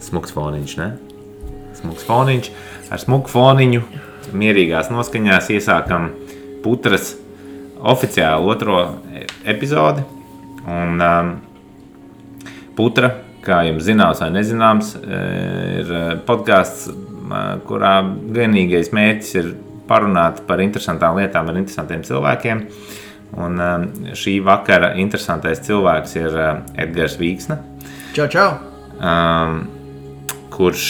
Smuks foniņš, ne? Smuks foniņš. Ar smuku foniņu mierīgās noskaņās iesākam Putras oficiāli 2. epizodi. Un Putra, kā jums zināms vai nezināms, ir podcasts, kurā vienīgais mērķis ir parunāt par interesantām lietām ar interesantiem cilvēkiem. Un šī vakara interesantais cilvēks ir Edgars Vīksne. Čau! Kurš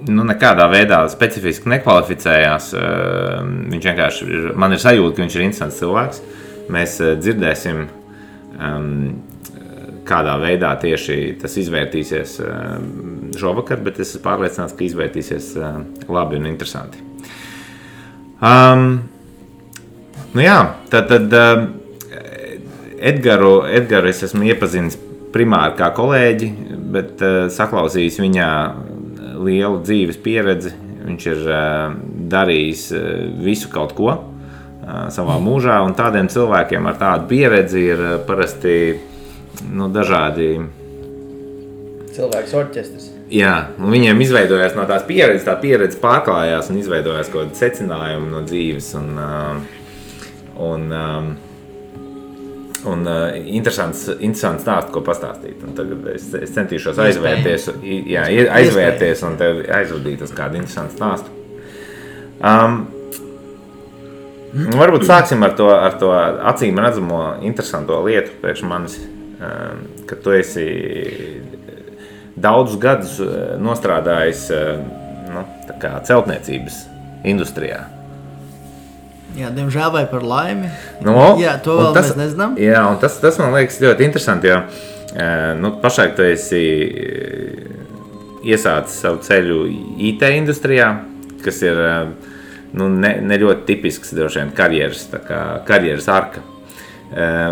nekādā veidā specifiski nekvalificējās. Viņš vienkārši man ir sajūta, ka viņš ir interesants cilvēks. Mēs dzirdēsim, kādā veidā tieši tas izvērtīsies šovakar, bet es esmu pārliecināts, ka izvērtīsies labi un interesanti. Tad Edgaru es esmu iepazinis primāri kā kolēģi, bet saklausījis viņā lielu dzīves pieredzi. Viņš ir darījis visu kaut ko savā mūžā, un tādiem cilvēkiem ar tādu pieredzi ir parasti dažādi cilvēks orķestris. Jā, un viņiem izveidojās no tās pieredzes, tā pieredze pārklājās un izveidojās kaut kādi secinājumi no dzīves un interesants stāsts, ko pastāstīt. Un tagad es centīšos aizvērties un tev aizvadīt uz kādu interesantu stāstu. Varbūt sāksim ar to acīm redzamo interesanto lietu priekš manis, ka tu esi daudzus gadus nostrādājis tā kā celtniecības industrijā. Jā, diemžēl vai par laimi. Jā, to vēl mēs nezinām. Jā, un tas man liekas ļoti interesanti, jo pašlaik tu esi iesācis savu ceļu IT industrijā, kas ir ne ļoti tipisks droši vien karjeras arka.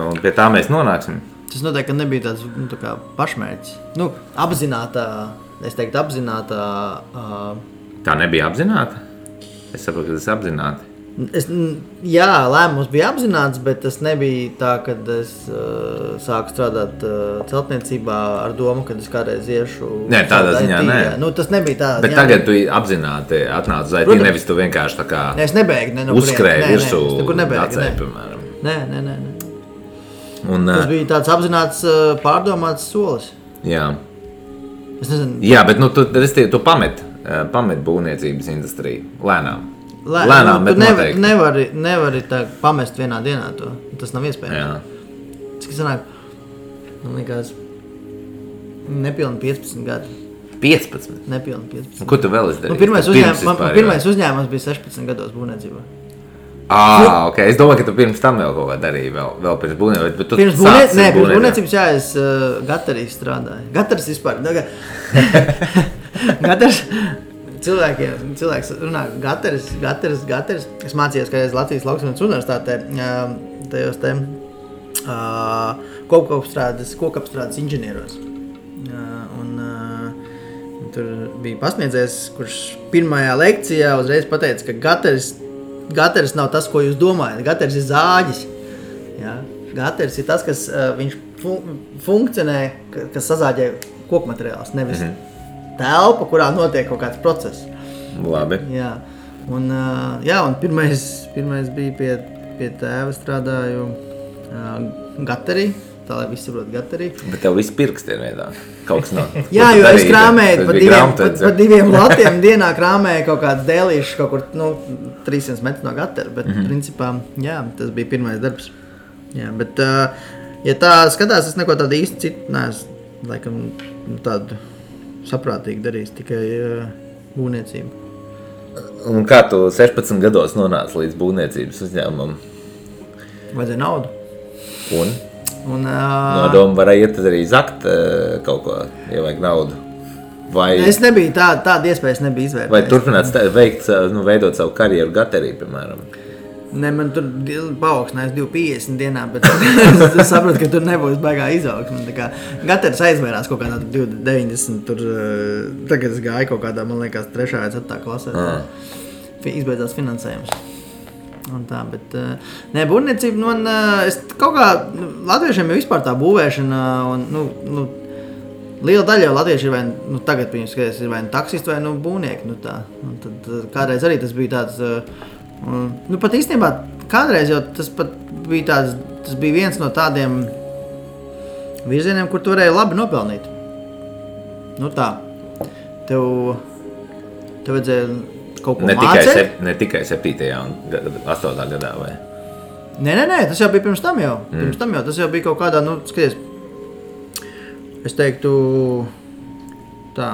Un pie tā mēs nonāksim. Tas noteikti nebija tāds tā kā pašmērķis. Apzinātā, es teiktu apzinātā. Tā nebija apzināta? Es saprotu, ka tas apzināti. Jā, lēmums bija apzināts, bet tas nebija tā, kad es sāku strādāt celtniecībā ar domu, kad es kādreiz iešu. Nē, tādā ziņā nē. Tas nebija tā. Bet tagad tu apzināti atnāc uz IT, nevis tu vienkārši tā kā uzskrēji virsū dacēji, piemēram. Nē. Tas bija tāds apzināts, pārdomāts solis. Jā. Es nezinu. Jā, bet tu pamet būvniecības industriju lēnām. Bet noteikti. Nevari tā pamest vienā dienā to. Tas nav iespējams. Jā. Cik sanāk, man liekas, nepilni 15 gadi. 15? Nepilni 15. Ko tu vēl esi darījis? Pirmais uzņēmums bija 16 gados būvniecībā. Ok. Es domāju, ka tu pirms tam vēl kaut kā darīji, vēl pirms būvniecības. Bet tu pirms būvniecības, jā, es Gatarī strādāju. Gataris vispār. Gataris. Cilvēks runā Gataris. Es mācījos kādreiz Latvijas Lauksaimniecības universitātē tajos kokapstrādes inženieros. Tur bija pasniedzējs, kurš pirmajā lekcijā uzreiz pateica, ka Gataris nav tas, ko jūs domājat. Gataris ir zāģis. Jā. Gataris ir tas, kas viņš funkcionē, kas sazāģē kokmateriālus, nevis telpa, kurā notiek kaut kāds process. Labi. Jā. Un pirmais bija pie tēva strādāju Gatarī, tā lai visi saprot Gatarī. Bet tev viss pirksti ir veidā. Kaut kas nav. Jā, jo es krāmēju pa 2 latiem dienā krāmēju kaut kāds dēlīšs kaut kur 300 metru no Gatara, bet principā, jā, tas bija pirmais darbs. Jā, bet ja tā skatās, es neko tādu īsti citu neesmu, laikam, tādu saprātīgi darījis, tikai būvniecību. Un kā tu 16 gados nonāci līdz būvniecības uzņēmumam? Vajadzēja naudu. Un nodomu varēja iet arī zakt kaut ko, ja vajag naudu. Vai es nebiju, tāda iespējas nebija izvērtēt. Vai turpināt veidot savu karjeru Gatarī, piemēram? Ne, man tur paaugstinājās 250 dienā, bet es saprotu, ka tur nebūs baigā izaugsme. Gataris aizvērās kaut kādā 290, tur tagad es gāju kaut kādā, man liekas, 3. vai 4. klasē. Izbeidzās finansējums. Un tā, bet būvniecība, es kaut kā latviešiem jau vispār tā būvēšana, un, liela daļa jau latvieši ir vai, tagad viņus skaties, ir vai taksisti vai būvnieki, tā. Un tad kādreiz arī tas bija tāds, pat īstenībā kādreiz jau tas pat bija tāds, tas bija viens no tādiem virzieniem, kur tu varēji labi nopelnīt. Tā, tev vajadzēja kaut ko mācēt. Ne tikai 7. un 8. gadā, vai? Nē, tas jau bija pirms tam jau. Tas jau bija kaut kādā, skaties, es teiktu, tā,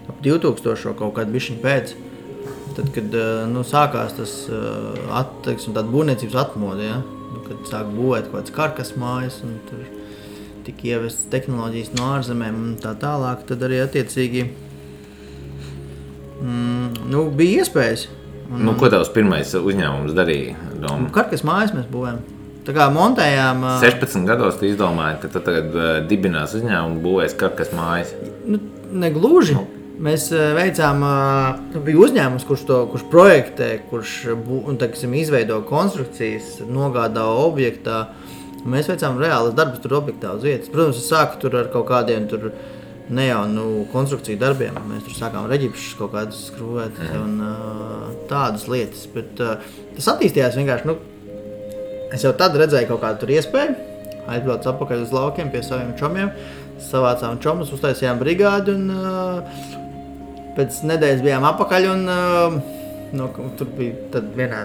ap 2000 kaut kādu bišķiņu pēc, tad, kad, sākās tas, tāda būvniecības atmoda, ja? Kad sāk būvēt kaut kāds karkas mājas, un tur tika ievestas tehnoloģijas no ārzemēm un tā tālāk, tad arī attiecīgi, bija iespējas. Ko tavs pirmais uzņēmums darīja? Karkas mājas mēs būvējam. Tā kā montējām... 16 gados tu izdomāji, ka tu tagad dibinās uzņēmumu būvēs karkas mājas. Negluži. Mēs veicām, bija uzņēmums, kurš projektē, kurš izveido konstrukcijas, nogādā objektā. Mēs veicām reālas darbus tur objektā uz vietas. Protams, es sāku tur ar kaut kādiem tur ne jau konstrukciju darbiem. Mēs tur sākām reģipšus kaut kādus skrūvēt un tādas lietas. Bet tas attīstījās vienkārši, es jau tad redzēju kaut kādu tur iespēju. Aizbraucu atpakaļ uz laukiem pie saviem čomiem. Savācām čomus, uztaisījām brigādi un pēc nedēļas bijām atpakaļ un tur bija tad vienā,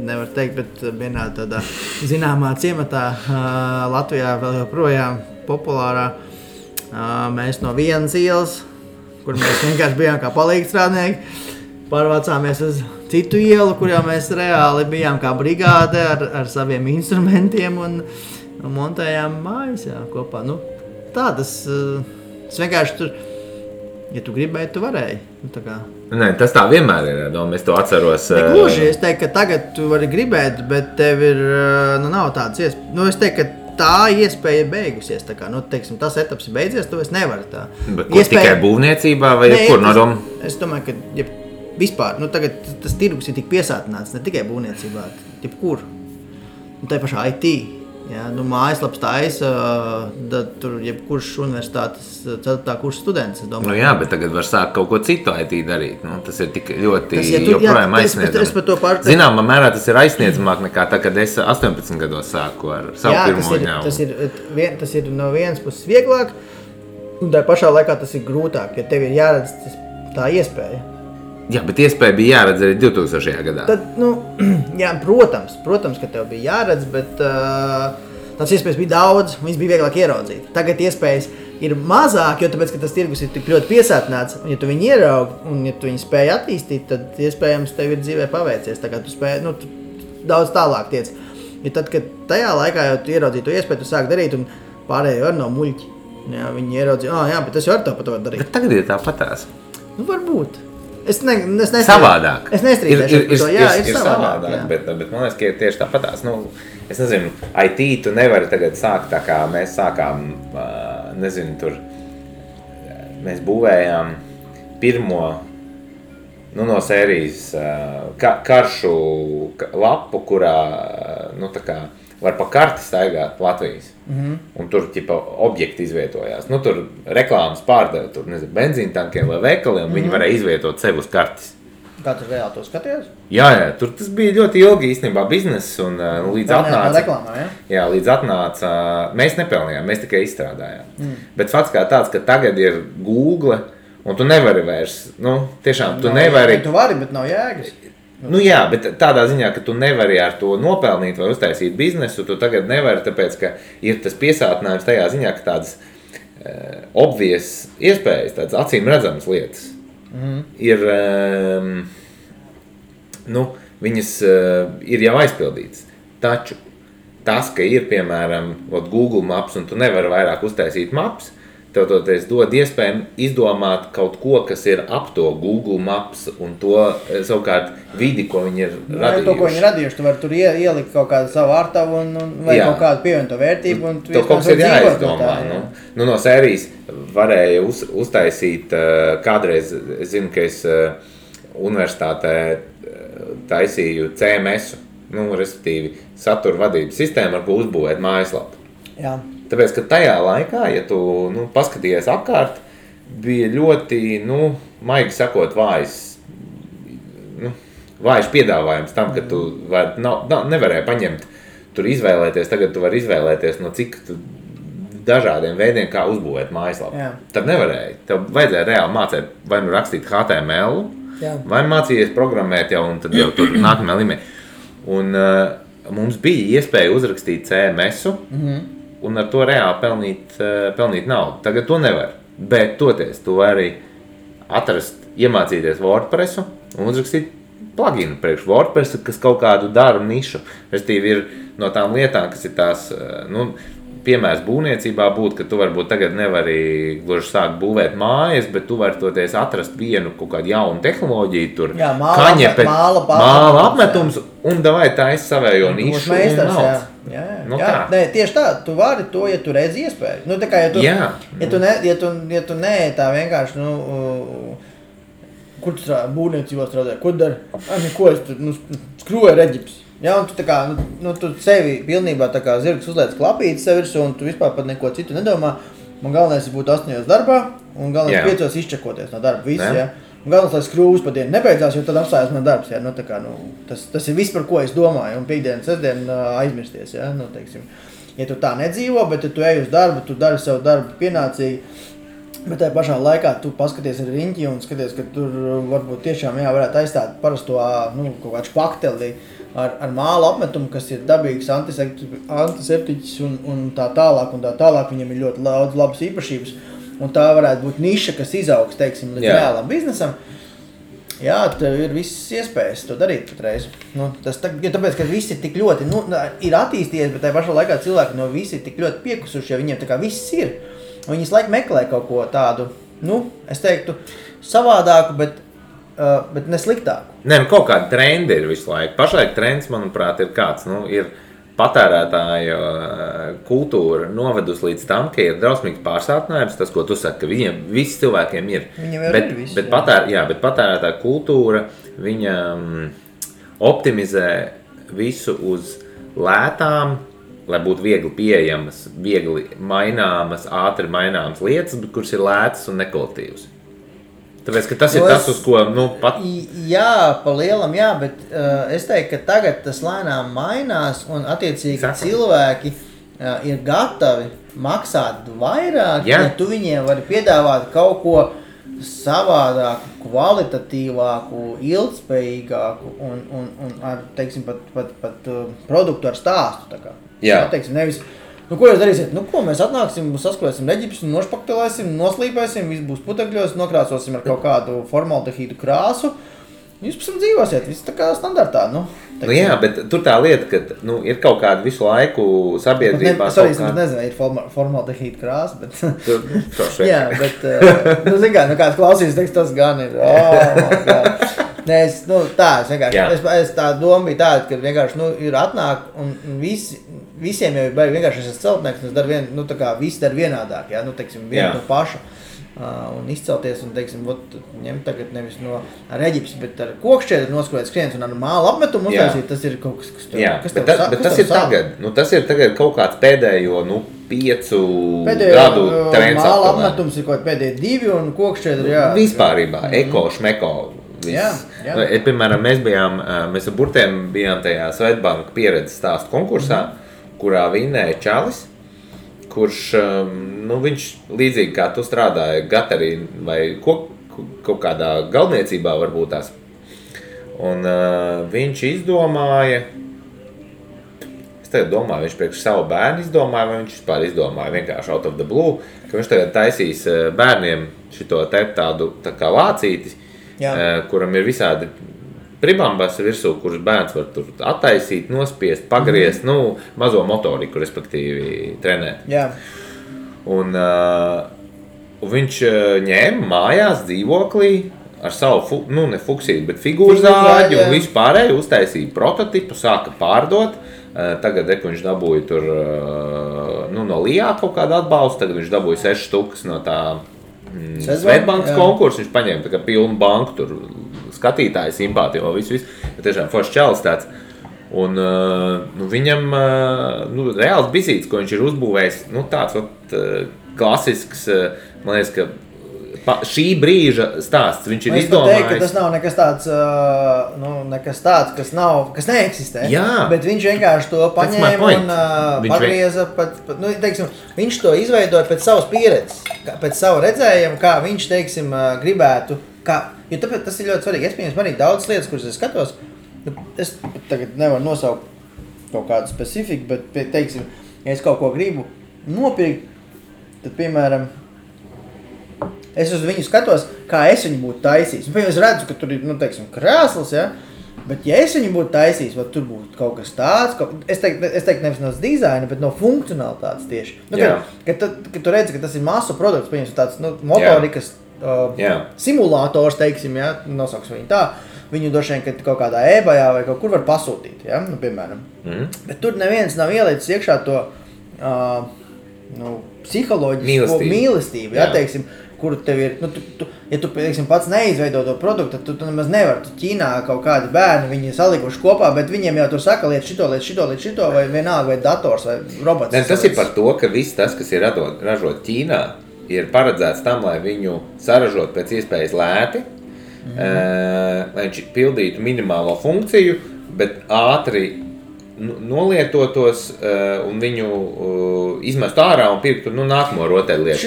nevar teikt, bet vienā tādā zināmā ciematā Latvijā vēl joprojām populārā. Mēs no vienas ielas, kur mēs vienkārši bijām kā palīgstrādnieki, pārvācāmies uz citu ielu, kur jau mēs reāli bijām kā brigāde ar saviem instrumentiem un montējām mājas kopā. Tas vienkārši tur, ja tu gribēji, tu varēji. Nē, tas tā vienmēr ir, es to atceros. Negluži, es teiktu, ka tagad tu vari gribēt, bet tev ir, nav tādas iespējas. Es teiktu, ka tā iespēja ir beigusies. Teiksim, tas etaps ir beidzies, tu vairs nevari tā. Bet tikai būvniecībā vai jebkur no doma? Es domāju, ka vispār, tagad tas tirgus ir tik piesātināts, ne tikai būvniecībā, jebkur. Tā pašā IT. Ja, mājaslaps taisa, tur jebkurš universitātes 4. kursa students, es domāju. Bet tagad var sākt kaut ko citu IT darīt. Tas ir tik ļoti joprojām aizsniedzamāk. Zināmā mērā tas ir aizsniedzamāk nekā tā, kad es 18 gados sāku ar savu pirmo uzņēmumu. Tas ir no vienas puses vieglāk, un tā pašā laikā tas ir grūtāk, jo tev ir jāredz tā iespēja. Jā, bet iespēja bija jāredz arī 2000. gadā. Tad, protams, ka tev bija jāredz, bet tās iespējas bija daudz, viņas bija vieglāk ieraudzīt. Tagad iespējas ir mazāk, jo tāpēc, ka tas tirgus ir tik ļoti piesātināts, un ja tu viņu ieraugi, un ja tu viņu spēj attīstīt, tad iespējams tev ir dzīvē paveicies. Tā kā tu spēj, tu daudz tālāk tiec. Ja tad, kad tajā laikā jau tu ieraudzīji to iespēju, tu sāk darīt, un pārējie var no muļķi. Jā, viņi ieraudzīja, jā, bet tas jau ar to pat var darīt. Bet tagad ir tāpatās. Varbūt. Es nestrīdēšu. Savādāk. Es nestrīdēšu par to. Jā, ir savādāk. Bet man liekas, ka ir tieši tāpatās. Es nezinu, IT tu nevari tagad sākt tā kā mēs sākām, tur mēs būvējām pirmo, no sērijas karšu lapu, kurā, tā kā var pa karti staigāt Latvijas. Un tur objekti izvietojās. Tur reklāmas pārdeva, tur benzīntankiem vai veikaliem, viņi varēja izvietot sev uz kartes. Kā tu reāli to skaties? Jā, tur tas bija ļoti ilgi īstenībā bizness un līdz atnāca. Reklāmā, ja? Jā, līdz atnāca, mēs nepelnījām, mēs tikai izstrādājām. Bet fakts kā tāds, ka tagad ir Google un tu nevari vairs, tiešām tu nevari. Tu vari, bet nav jēgas. Jā, bet tādā ziņā, ka tu nevari ar to nopelnīt vai uztaisīt biznesu, tu tagad nevari, tāpēc, ka ir tas piesātinājums tajā ziņā, ka tādas obvious iespējas, tādas acīm redzamas lietas ir, viņas ir jau aizpildītas. Taču tas, ka ir, piemēram, Google Maps un tu nevari vairāk uztaisīt maps, tev toties dod iespēju izdomāt kaut ko, kas ir ap to Google Maps un to savukārt vidi, ko viņi ir radījuši. To, ko viņi radījuši, tu vari tur ielikt kaut kādu savu ārtavu vai kaut kādu pievienoto vērtību. To kaut kas ir jāizdomā. No sērijas varēja uztaisīt kādreiz, es zinu, ka es universitātē taisīju CMS-u, respektīvi satura vadības sistēmu, ar ko uzbūvēt mājaslapu. Jā. Tāpēc, ka tajā laikā, ja tu paskatījies apkārt, bija ļoti, maigi sakot, vājš piedāvājums tam, ka tu nevarēji paņemt, tur izvēlēties, tagad tu vari izvēlēties no cik dažādiem veidiem, kā uzbūvēt mājaslapu. Tad nevarēji. Tev vajadzēja reāli mācīt, vai rakstīt HTML, vai mācījies programmēt jau, un tad jau tur nākamajā līmenī. Un mums bija iespēja uzrakstīt CMS-u, un ar to reāli pelnīt naudu. Tagad to nevar. Bet toties, tu vari iemācīties WordPressu un uzrakstīt pluginu priekš WordPressu, kas kaut kādu daru nišu. Restīvi ir no tām lietām, kas ir tās, piemērs būvniecībā būtu, ka tu varbūt tagad nevari gluži sākt būvēt mājas, bet tu vari toties atrast vienu kaut kādu jaunu tehnoloģiju, tur māla apmetums, un davai taisi savējo nišu un naudas. Nē, tieši tā, tu vari to, ja tu redzi iespēju. Tā kā, ja tu nē, tā vienkārši, kur tu strādā, būvniecībā strādā, ko dari? Ko es tur, skrūvēju reģips. Un tu tā kā, tu sevi pilnībā tā kā zirgs uzliec klapīti sev virsū, un tu vispār pat neko citu nedomā. Man galvenais ir būt 8 darbā, un galvenais 5 izčakoties no darba visu, Un galvenais, lai skrūvas pa dienu nebeidzās, jo tad apstājās man darbs, tā kā, tas ir viss, par ko es domāju, un piekdienu, sestdienu aizmirsties, teiksim. Ja tu tā nedzīvo, bet ja tu ej uz darbu, tu dari savu darbu pienācīgi, bet tajā pašā laikā tu paskaties ar riņķi un skaties, ka tur varbūt tiešām varētu aizstāt parasto kaut kādu špakteli ar māla apmetumu, kas ir dabīgs antiseptiķis un tā tālāk, viņam ir ļoti daudz labas īpašības, un tā varētu būt niša, kas izaugs, teiksim, līdz reālam biznesam. Tev ir visas iespējas to darīt patreiz. Tāpēc, ka visi ir tik ļoti, ir attīstījies, bet tajā pašā laikā cilvēki no visi ir tik ļoti piekusuši, jo viņiem tā kā viss ir. Viņi visu laiku meklē kaut ko tādu, es teiktu, savādāku, bet nesliktāku. Kaut kāda trendi ir visu laiku. Pašlaik trends, manuprāt, ir kāds, ir patērētāja kultūra novedus līdz tam, ka ir drausmīgs pārsātinājums, tas, ko tu saki, ka viņiem visi cilvēkiem ir. Bet patērētāja kultūra, viņa optimizē visu uz lētām, lai būtu viegli pieejamas, viegli maināmas, ātri maināmas lietas, kuras ir lētas un nekvalitīvas. Tāpēc, ka tas ir tas, uz ko, pat... Jā, pa lielam, bet es teiktu, ka tagad tas lēnām mainās, un attiecīgi cilvēki ir gatavi maksāt vairāk, ja tu viņiem vari piedāvāt kaut ko savādāku, kvalitatīvāku, ilgspējīgāku un ar, teiksim, pat produktu ar stāstu, tā kā. Teiksim, nevis, ko jūs darīsiet? Ko mēs atnāksim, saskrēsim reģipus, nošpaktelēsim, noslīpēsim, viss būs putekļos, nokrāsosim ar kaut kādu formaldehīdu krāsu. Jūs pēc tam dzīvosiet, viss tā kā standartā, bet tur tā lieta, ka, ir kaut kāda visu laiku sabiedrībā... Es nezinu, ir formaldehīda krāsa, bet... bet, kāds klausīs, teiks, tas gan ir, es tā doma bija tāda, ka vienkārši, ir atnāk un visiem jau ir vienkārši esas celtnieks, un es daru visi dar vienādāk, teiksim, vienu to pašu. Un izcelties un, teiksim, ņemt tagad nevis no reģips, bet ar kokšķiedru noskrojot skriens un ar māla apmetumu uztaisīt, tas ir kaut kas, bet tas ir tagad, tas ir tagad kaut kāds pēdējo, 5 gadu trends. Māla apmetums ir kaut pēdējo 2 un kokšķiedru, Vispārībā, eko, šmeko. Piemēram, mēs ar burtiem bijām tajā Svetbanka pieredzes stāstu konkursā, kurā vinnēja čalis, kurš, viņš līdzīgi kā tu strādāja Gatarī vai kaut kādā galdniecībā varbūt tās. Un viņš izdomāja, es tagad domāju, viņš priekš savu bērnu izdomāja, vai viņš vispār izdomāja vienkārši out of the blue, ka viņš tagad taisīs bērniem šito tādu tā kā lācīti, kuram ir visādi pribambas virsū, kurus bērns var tur attaisīt, nospiest, pagriezt, mazo motoriku, respektīvi, trenēt. Un viņš ņēma mājās dzīvoklī ar savu, ne fuksīti, bet figūru zāģi un visu pārēju uztaisīja prototipu, sāka pārdot. Tagad viņš dabūja tur, no Lijā kaut kādu atbalstu, tagad viņš dabūja 6 štukas no tā Svetbankas konkursu, viņš paņēma tā kā pilnu banku tur, skatītāju simpātiju, visu, bet tiešām foršs čalis tāds. Un viņam reāls bizīts, ko viņš ir uzbūvējis, tāds klasisks, man liekas, ka šī brīža stāsts, viņš ir izdomājis. Es teiktu, ka tas nav nekas tāds, kas neeksistē, bet viņš vienkārši to paņēma un pagrieza viņš to izveidoja pēc savas pieredzes, pēc savu redzējumu, kā viņš, teiksim, gribētu, jo tāpēc tas ir ļoti svarīgi. Es pieņems arī daudz lietas, kuras es skatos, es tagad nevaru nosaukt kaut kādu specifiku, bet, teiksim, ja es kaut ko gribu nopirkt, tad, piemēram, es uz viņu skatos, kā es viņu būtu taisījis. Es redzu, ka tur ir, teiksim, krēsls, ja? Bet ja es viņu būtu taisījis, vai tur būtu kaut kas tāds, es teiktu nevis no dizaina, bet no funkcionalitātes tieši. Kad tu redzi, ka tas ir masu produkts, pieņems tāds motorikas simulators, teiksim, ja? Nosauks viņu tā, viņu droši vien, kad kaut kādā eBayā vai kaut kur var pasūtīt, ja? Piemēram. Bet tur neviens nav ielicis iekšā to psiholoģisko mīlestību, ja? Teiksim, kur tev ir, ja tu teiksim, pats neizveido to produktu, tad tu nemaz nevar. Tu Ķīnā kaut kādi bērni, viņi salikuši kopā, bet viņiem jau tur saka liet šito, vai vienalga, vai dators, vai robots. Tas ir par to, ka viss tas, kas ir ražot Ķīnā, ir paredzēts tam, lai viņu saražot pēc iespējas lēti, lai viņš pildītu minimālo funkciju, bet ātri nolietotos un viņu izmestu ārā un pirktu nākamo rotaļlietu.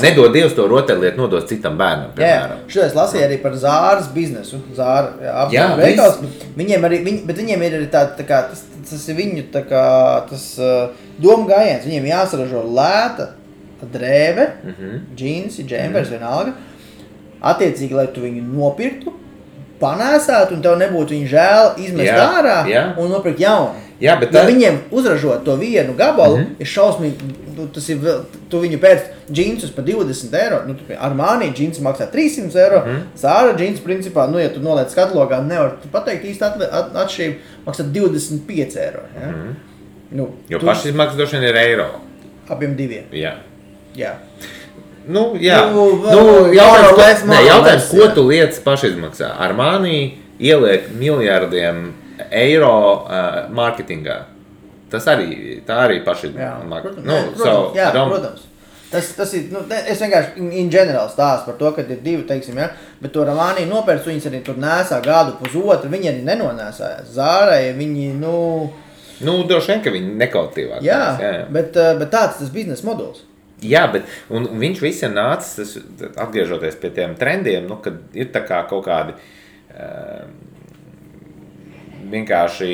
Nedod Dievs to rotaļlietu, nodos citam bērnam, piemēram. Šodien es lasīju arī par Zāras biznesu. Zāra veikals. Viņiem ir arī tā kā, tas ir viņu tā kā, tas doma gājiens. Viņiem jāsaražo lēta drēve, džinsi, džempers, vienalga. Attiecīgi, lai tu viņu nopirktu, panēsētu un tev nebūtu viņu žēl izmest ārā un nopirkt jaunu. Ja viņiem uzražot to vienu gabalu, ir šausmīgi, tu viņu pēc džinsus par 20 eiro, Armani džinsi maksā 300 eiro, Zara džins principā, ja tu noliec katalogā, nevar pateikt īsti atšķirību, maksā 25 eiro. Ja? Jo pašizmaksas droši vien ir eiro. Abiem diviem. Jā. Jautājums, ko tu lietas pašizmaksā? Armani ieliek miljardiem eiro mārketingā. Tā arī pašizmaksā. Protams. Tas ir, es vienkārši in general stāstu par to, ka ir divi, teiksim, ja, bet to Armani nopērts, viņas arī tur nēsā gadu pusotru, viņi arī nenonēsājās. Zārai, viņi, droši vien, ka viņi nekautīvāk. Jā, bet tāds tas biznesa modelis. Jā, bet un viņš viss ir nācis, atgriežoties pie tiem trendiem, kad ir tā kā kaut kādi vienkārši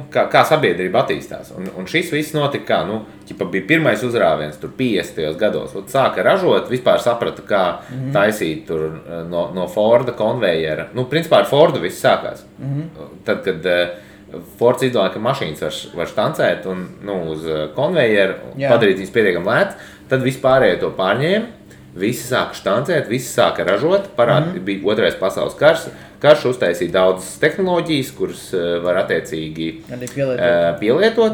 kā sabiedrība attīstās. Un šis viss notika kā, bija pirmais uzrāviens tur 50. gados. Sāka ražot, vispār saprata, kā taisīt tur no Forda konvejera. Principā ar Fordu viss sākās. Tad, kad Fords izdomāja, ka mašīnas var štancēt un uz konvejeru, padarīt viņas pietiekami lētas, tad vispārējo to pārņēma, visi sāka štancēt, visi sāka ražot, bija otrais pasaules karš uztaisīja daudzas tehnoloģijas, kuras var attiecīgi pielietot.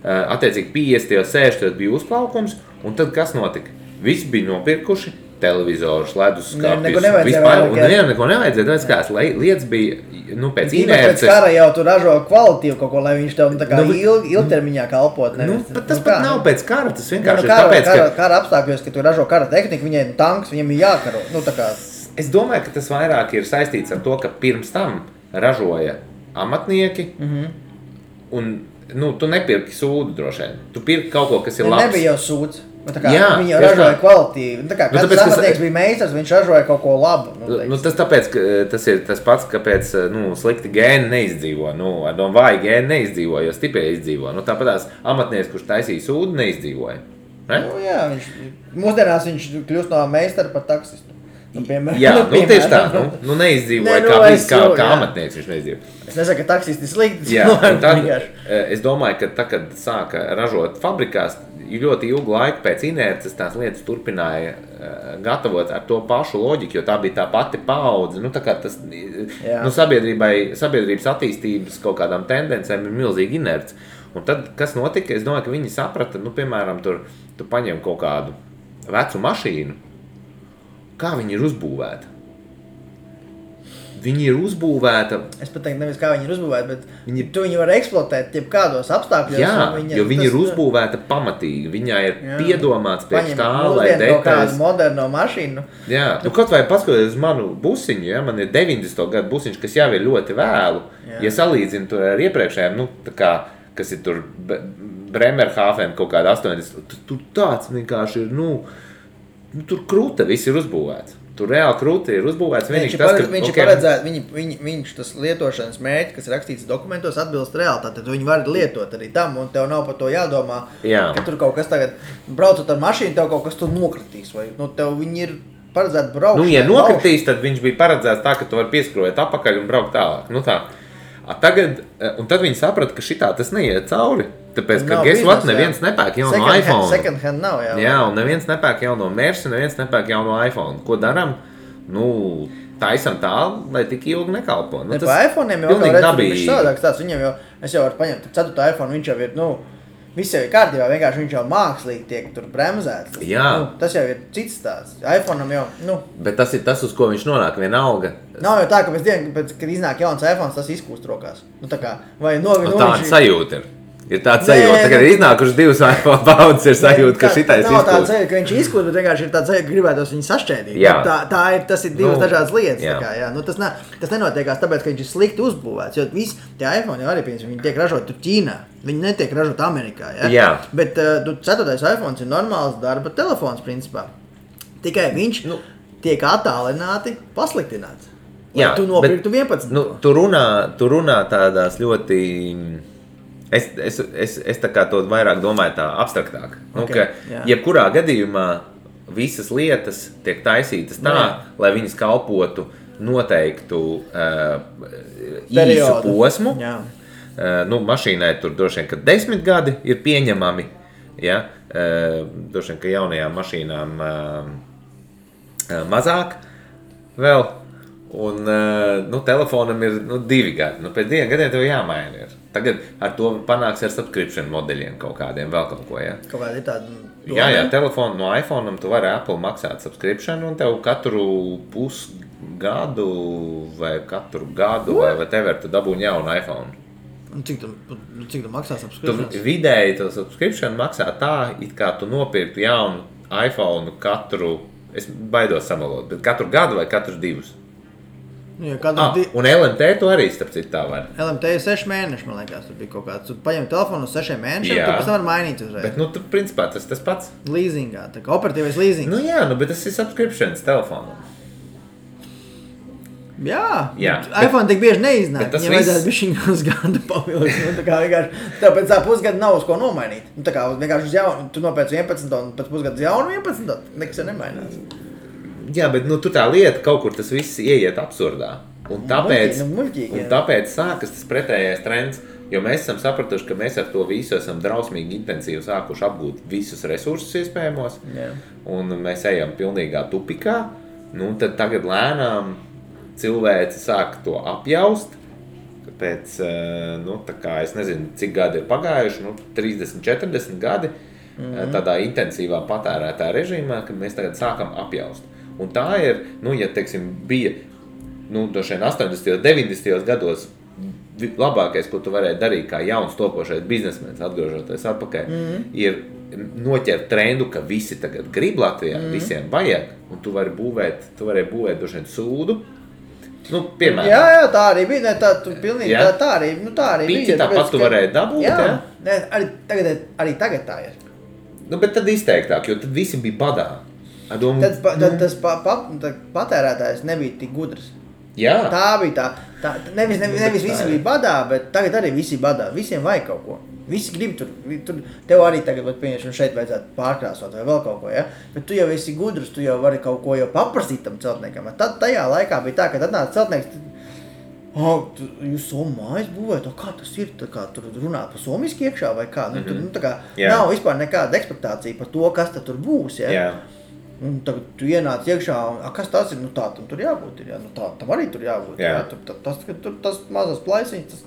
Attiecīgi 50. 60. bija uzplaukums, un tad kas notika? Visi bija nopirkuši televizorus, leduskapjus, vispār, un nevienam neko nevajadzēja, tāpēc kāds lietas bija, pēc inerces. Pēc kara jau tu ražo kvalitīvu kaut ko, lai viņš tev tā kā ilgtermiņā kalpot. Tas pat nav pēc kara, tas vienkārši ir tāpēc, ka... Kara apstākļos, ka tu ražo kara tehniku, viņiem tanks, viņiem ir jākaro, Es domāju, ka tas vairāk ir saistīts ar to, ka pirms tam ražoja amatnieki, un, tu nepirki sūdu droši vien, tu pirki kaut ko, kas ir labs. Nebija jau sūds. Viņi jau ražoja kvalitīvu. Kāds amatnieks bija meistars, viņš ražoja kaut ko labu. Tas tāpēc, ka tas ir tas pats, kāpēc slikti gēni neizdzīvo. Vāji gēni neizdzīvo, jo stiprie izdzīvo. Tāpēc amatnieks, kurš taisīja sūdu, neizdzīvoja. Mūsdienās viņš kļūst no meistara par taksistu. Tieši tā. Neizdzīvoja kā amatnieks viņš neizdzīvoja. Es nesaku, ka taksisti ir slikti. Es domāju, ka tā, kad sāka ražot fabrikās, ļoti ilgu laiku pēc inerces tās lietas turpināja gatavot ar to pašu loģiku, jo tā bija tā pati paudze. Sabiedrības attīstības kaut kādām tendencēm ir milzīgi inerce. Un tad, kas notika? Es domāju, ka viņi saprata, piemēram, tu paņem kaut kādu vecu mašīnu, kā viņi ir uzbūvēti. viņi ir uzbūvēta. Es pat teiktu, nevis kā viņi ir uzbūvēti, bet tu viņi var eksploatēt jebkādos apstākļos. Jā, jo viņi ir uzbūvēta pamatīgi. Viņai ir piedomāts priekš tā, lai detaļas. Kaut kādu moderno mašīnu. Jā, kaut vai paskatoties uz manu busiņu, ja, man ir 90. gadu busiņš, kas jau ir ļoti vēlu. Ja salīdzinu tur ar iepriekšējiem, tā kā, kas ir tur Bremerhaven kaut kāda 80. Tur tāds vienkārši ir, tur kruta viss ir uzbūvēts. Tur reāli krūti ir uzbūvēts. Viņš tas lietošanas mērķi, kas ir rakstīts dokumentos, atbilst realitātei. Viņi var lietot arī tam, un tev nav par to jādomā, ka tur kaut kas tagad, braucot ar mašīnu, tev kaut kas tur nokritīs. Vai, tev viņi ir paredzēti braukšanai. Ja nokritīs, tad viņš bija paredzēts tā, ka tu vari pieskrojēt apakaļ un braukt tālāk. Tā. Tagad, un tad viņi saprata, ka šitā tas neiet cauri. Tāpēc, ka neviens nepērk jauno iPhone. Second hand nav, jā, un neviens nepērk jauno Mersi, neviens nepērk jauno iPhone. Ko daram? Taisam tā, lai tik ilgi nekalpo. Pa iPhone'iem jau redzu, savādāks tāds. Viņam jau, es jau varu paņemt 4. iPhone, viņš jau ir, viss jau ir kārtībā, vienkārši viņš jau mākslīgi tiek tur bremzēts. Tas jau ir cits tāds. iPhone'am jau, Bet tas ir tas, uz ko viņš nonāk, vienalga. Nav jau tā, ka kad iznāk jauns iPhones, tas izkūst rokās. Vai tāda sajūta ir. Ir tāds sajūta, kad ir iznākuši 2 iPhone paudzes, ir sajūta, ka šitais izkūst. Nav tāds sajūta, ka viņš izkūst, bet vienkārši ir tāds sajūta, ka gribētos viņu sašķēdīt. Tas ir divas dažādas lietas. Tas nenotiekās tāpēc, ka viņš ir slikti uzbūvēts, jo visi tie iPhone jau arī, viņi tiek ražoti Ķīnā. Viņi netiek ražoti Amerikā. Bet 4. iPhone ir normāls darba telefons, principā. Tikai viņš tiek attālināti pasliktināts. Tu nopirktu 11. Tu runā tādās ļoti... Es tā kā to vairāk domāju tā abstraktāk. Jebkurā gadījumā visas lietas tiek taisītas tā, lai viņas kalpotu noteiktu īsu posmu. Mašīnai tur droši vien, ka 10 gadi ir pieņemami. Droši vien, ka jaunajām mašīnām mazāk vēl. Un telefonam ir 2 gadi. Pēc 2 gadiem tev jāmaina ir. Tagad ar to panāks ar subscription modeļiem kaut kādiem, vēl kaut ko, Kaut kādi tādi... Jā, telefonu no iPhone'am tu vari Apple maksāt subscription un tev katru pusgadu vai katru gadu vai whatever tu dabūni jaunu iPhone. Un cik tu maksā subscription? Vidēji to subscription maksā tā, it kā tu nopirktu jaunu iPhone katru, es baidos samalot, bet katru gadu vai katru 2. Un LMT tu arī starp citu tā var. LMT ir 6 mēneši, man liekas, tur bija kaut kāds. Tu paņem telefonu uz 6 mēnešiem, tu pēc tam var mainīt uzreiz. Bet, tu principā tas pats. Leasingā, tā kā operatīvais leasing. Bet tas ir subscriptions telefonam. Jā. iPhone tik bieži neiznāk. Viņam vajadzētu bišķiņu uz gadu pavilkt. Tāpēc tā pusgada nav uz ko nomainīt. Tā kā vienkārši uz jaunu, tu nopēc 11 un pēc pusgada uz jaunu 11, nekas jau nemainās. Jā, bet tur tā lieta kaut kur tas viss ieiet absurdā. Un tāpēc sākas tas pretējais trends, jo mēs esam sapratuši, ka mēs ar to visu esam drausmīgi intensīvi sākuši apgūt visus resursus iespējamos. Un mēs ejam pilnīgā tupikā. Tad tagad lēnām cilvēci sāk to apjaust. Pēc, tā kā es nezinu, cik gadi ir pagājuši, 30, 40 gadi tādā intensīvā patērētā režīmā, kad mēs tagad sākam apjaust. Un tā ir, ja, teiksim, bija, droši vien 80. 90. gados labākais, ko tu varēji darīt kā jauns topošais biznesmenis, atgriežoties atpakaļ, ir noķert trendu, ka visi tagad grib Latvijā, visiem vajag, un tu vari būvēt droši vien sūdu. Piemēram. Jā, tā arī bija, pilnīgi, tā arī bija. Piķi tāpat tu varēji dabūt, jā? Arī tagad tā ir. Bet tad izteiktāk, jo tad visi bija badā. Tas patērētājs nebija tik gudrs. Jā. Tā bija tā. Nevis visi bija badā, bet tagad arī visi badā. Visiem vajag kaut ko. Visi grib tur. Tev arī tagad, pieņemsim, šeit vajadzētu pārkrāsot vai vēl kaut ko, ja? Bet tu jau esi gudrs, tu jau vari kaut ko jau paprasīt tam celtniekam. Tad tajā laikā bija tā, kad atnāca celtnieks, jūs somu mājas būvēt, kā tas ir, tur runāt pa somiski iekšā vai kā? Nav vispār nekāda ekspektācija par to, kas tad tur būs, ja? Jā. Un tagad tu ienāc iekšā, kas tas ir? Tā tam tur jābūt ir, tam arī tur jābūt. Jā. Tas mazas plaisiņas,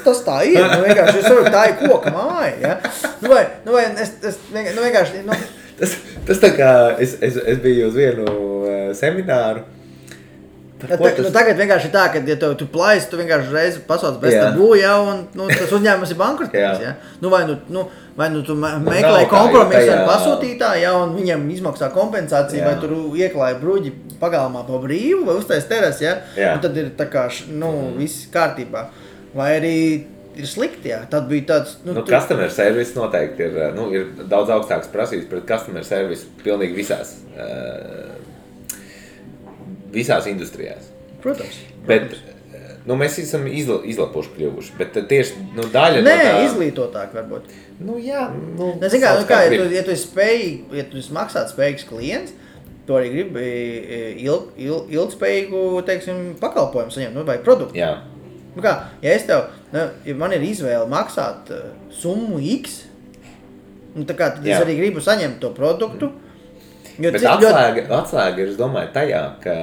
tas tā ir. Vienkārši tā ir koka māja. Ja? Vai es vienkārši... Tas tā kā, es biju uz vienu semināru, Tagad vienkārši tā, ka, ja tu plaisi, tu vienkārši reizi pasauc bez tabū, un tas uzņēmums ir bankrotējis. Ja? Vai tu meklē kompromisu ar pasūtītāju, un viņam izmaksā kompensāciju, vai tur ieklāja bruģi pagalmā pa brīvu, vai uztais teras, un tad ir tā kā, viss kārtībā. Vai arī ir slikti, tad bija tāds... Customer service noteikti ir daudz augstāks prasības pret customer service pilnīgi visās industrijās. Protams. Bet mēs esam izlapuši kļuvuši, bet tieši daļa no tā... izglītotāk varbūt. Jā. Ja tu esi maksāt spējīgs klients, tu arī gribi ilgspējīgu, teiksim, pakalpojumu saņemt, vai produktu. Jā. Ja man ir izvēle maksāt summu X, tad es arī gribu saņemt to produktu. Bet atslēga ir, es domāju, tajā, ka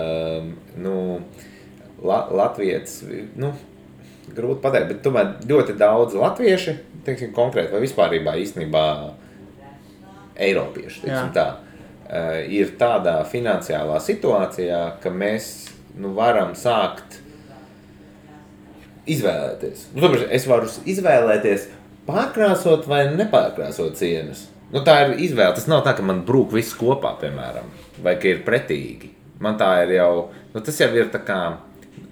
latvietis, grūti pateikt, bet tomēr ļoti daudz latvieši, teiksim, konkrēti vai vispārībā īstenībā eiropieši, teiksim tā, ir tādā finansiālā situācijā, ka mēs varam sākt izvēlēties. Es varu izvēlēties pārkrāsot vai nepārkrāsot sienas. Tā ir izvēle. Tas nav tā, ka man brūk viss kopā, piemēram, vai ka ir pretīgi. Man tā ir jau, tas jau ir tā kā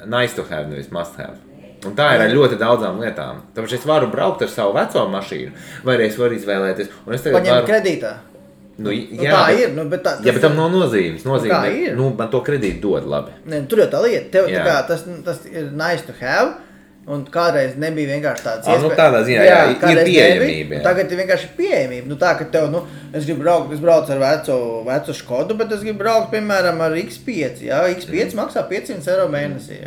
nice to have, nevis must have. Un tā ir ar ļoti daudzām lietām. Tāpēc es varu braukt ar savu veco mašīnu, vai arī es varu izvēlēties. Paņemt kredītā. Tā ir. Bet tam nav nozīmes. Man to kredītu dod labi. Tur jau tā lieta. Tas ir nice to have. Un kādreiz nebija vienkārši tāds iespēja. Tādā ziņā, ir pieejamība. Tagad ir vienkārši pieejamība. Tā, ka tev, es braucu ar vecu Škodu, bet es gribu braukt, piemēram, ar X5. X5 maksā 500 eiro mēnesī.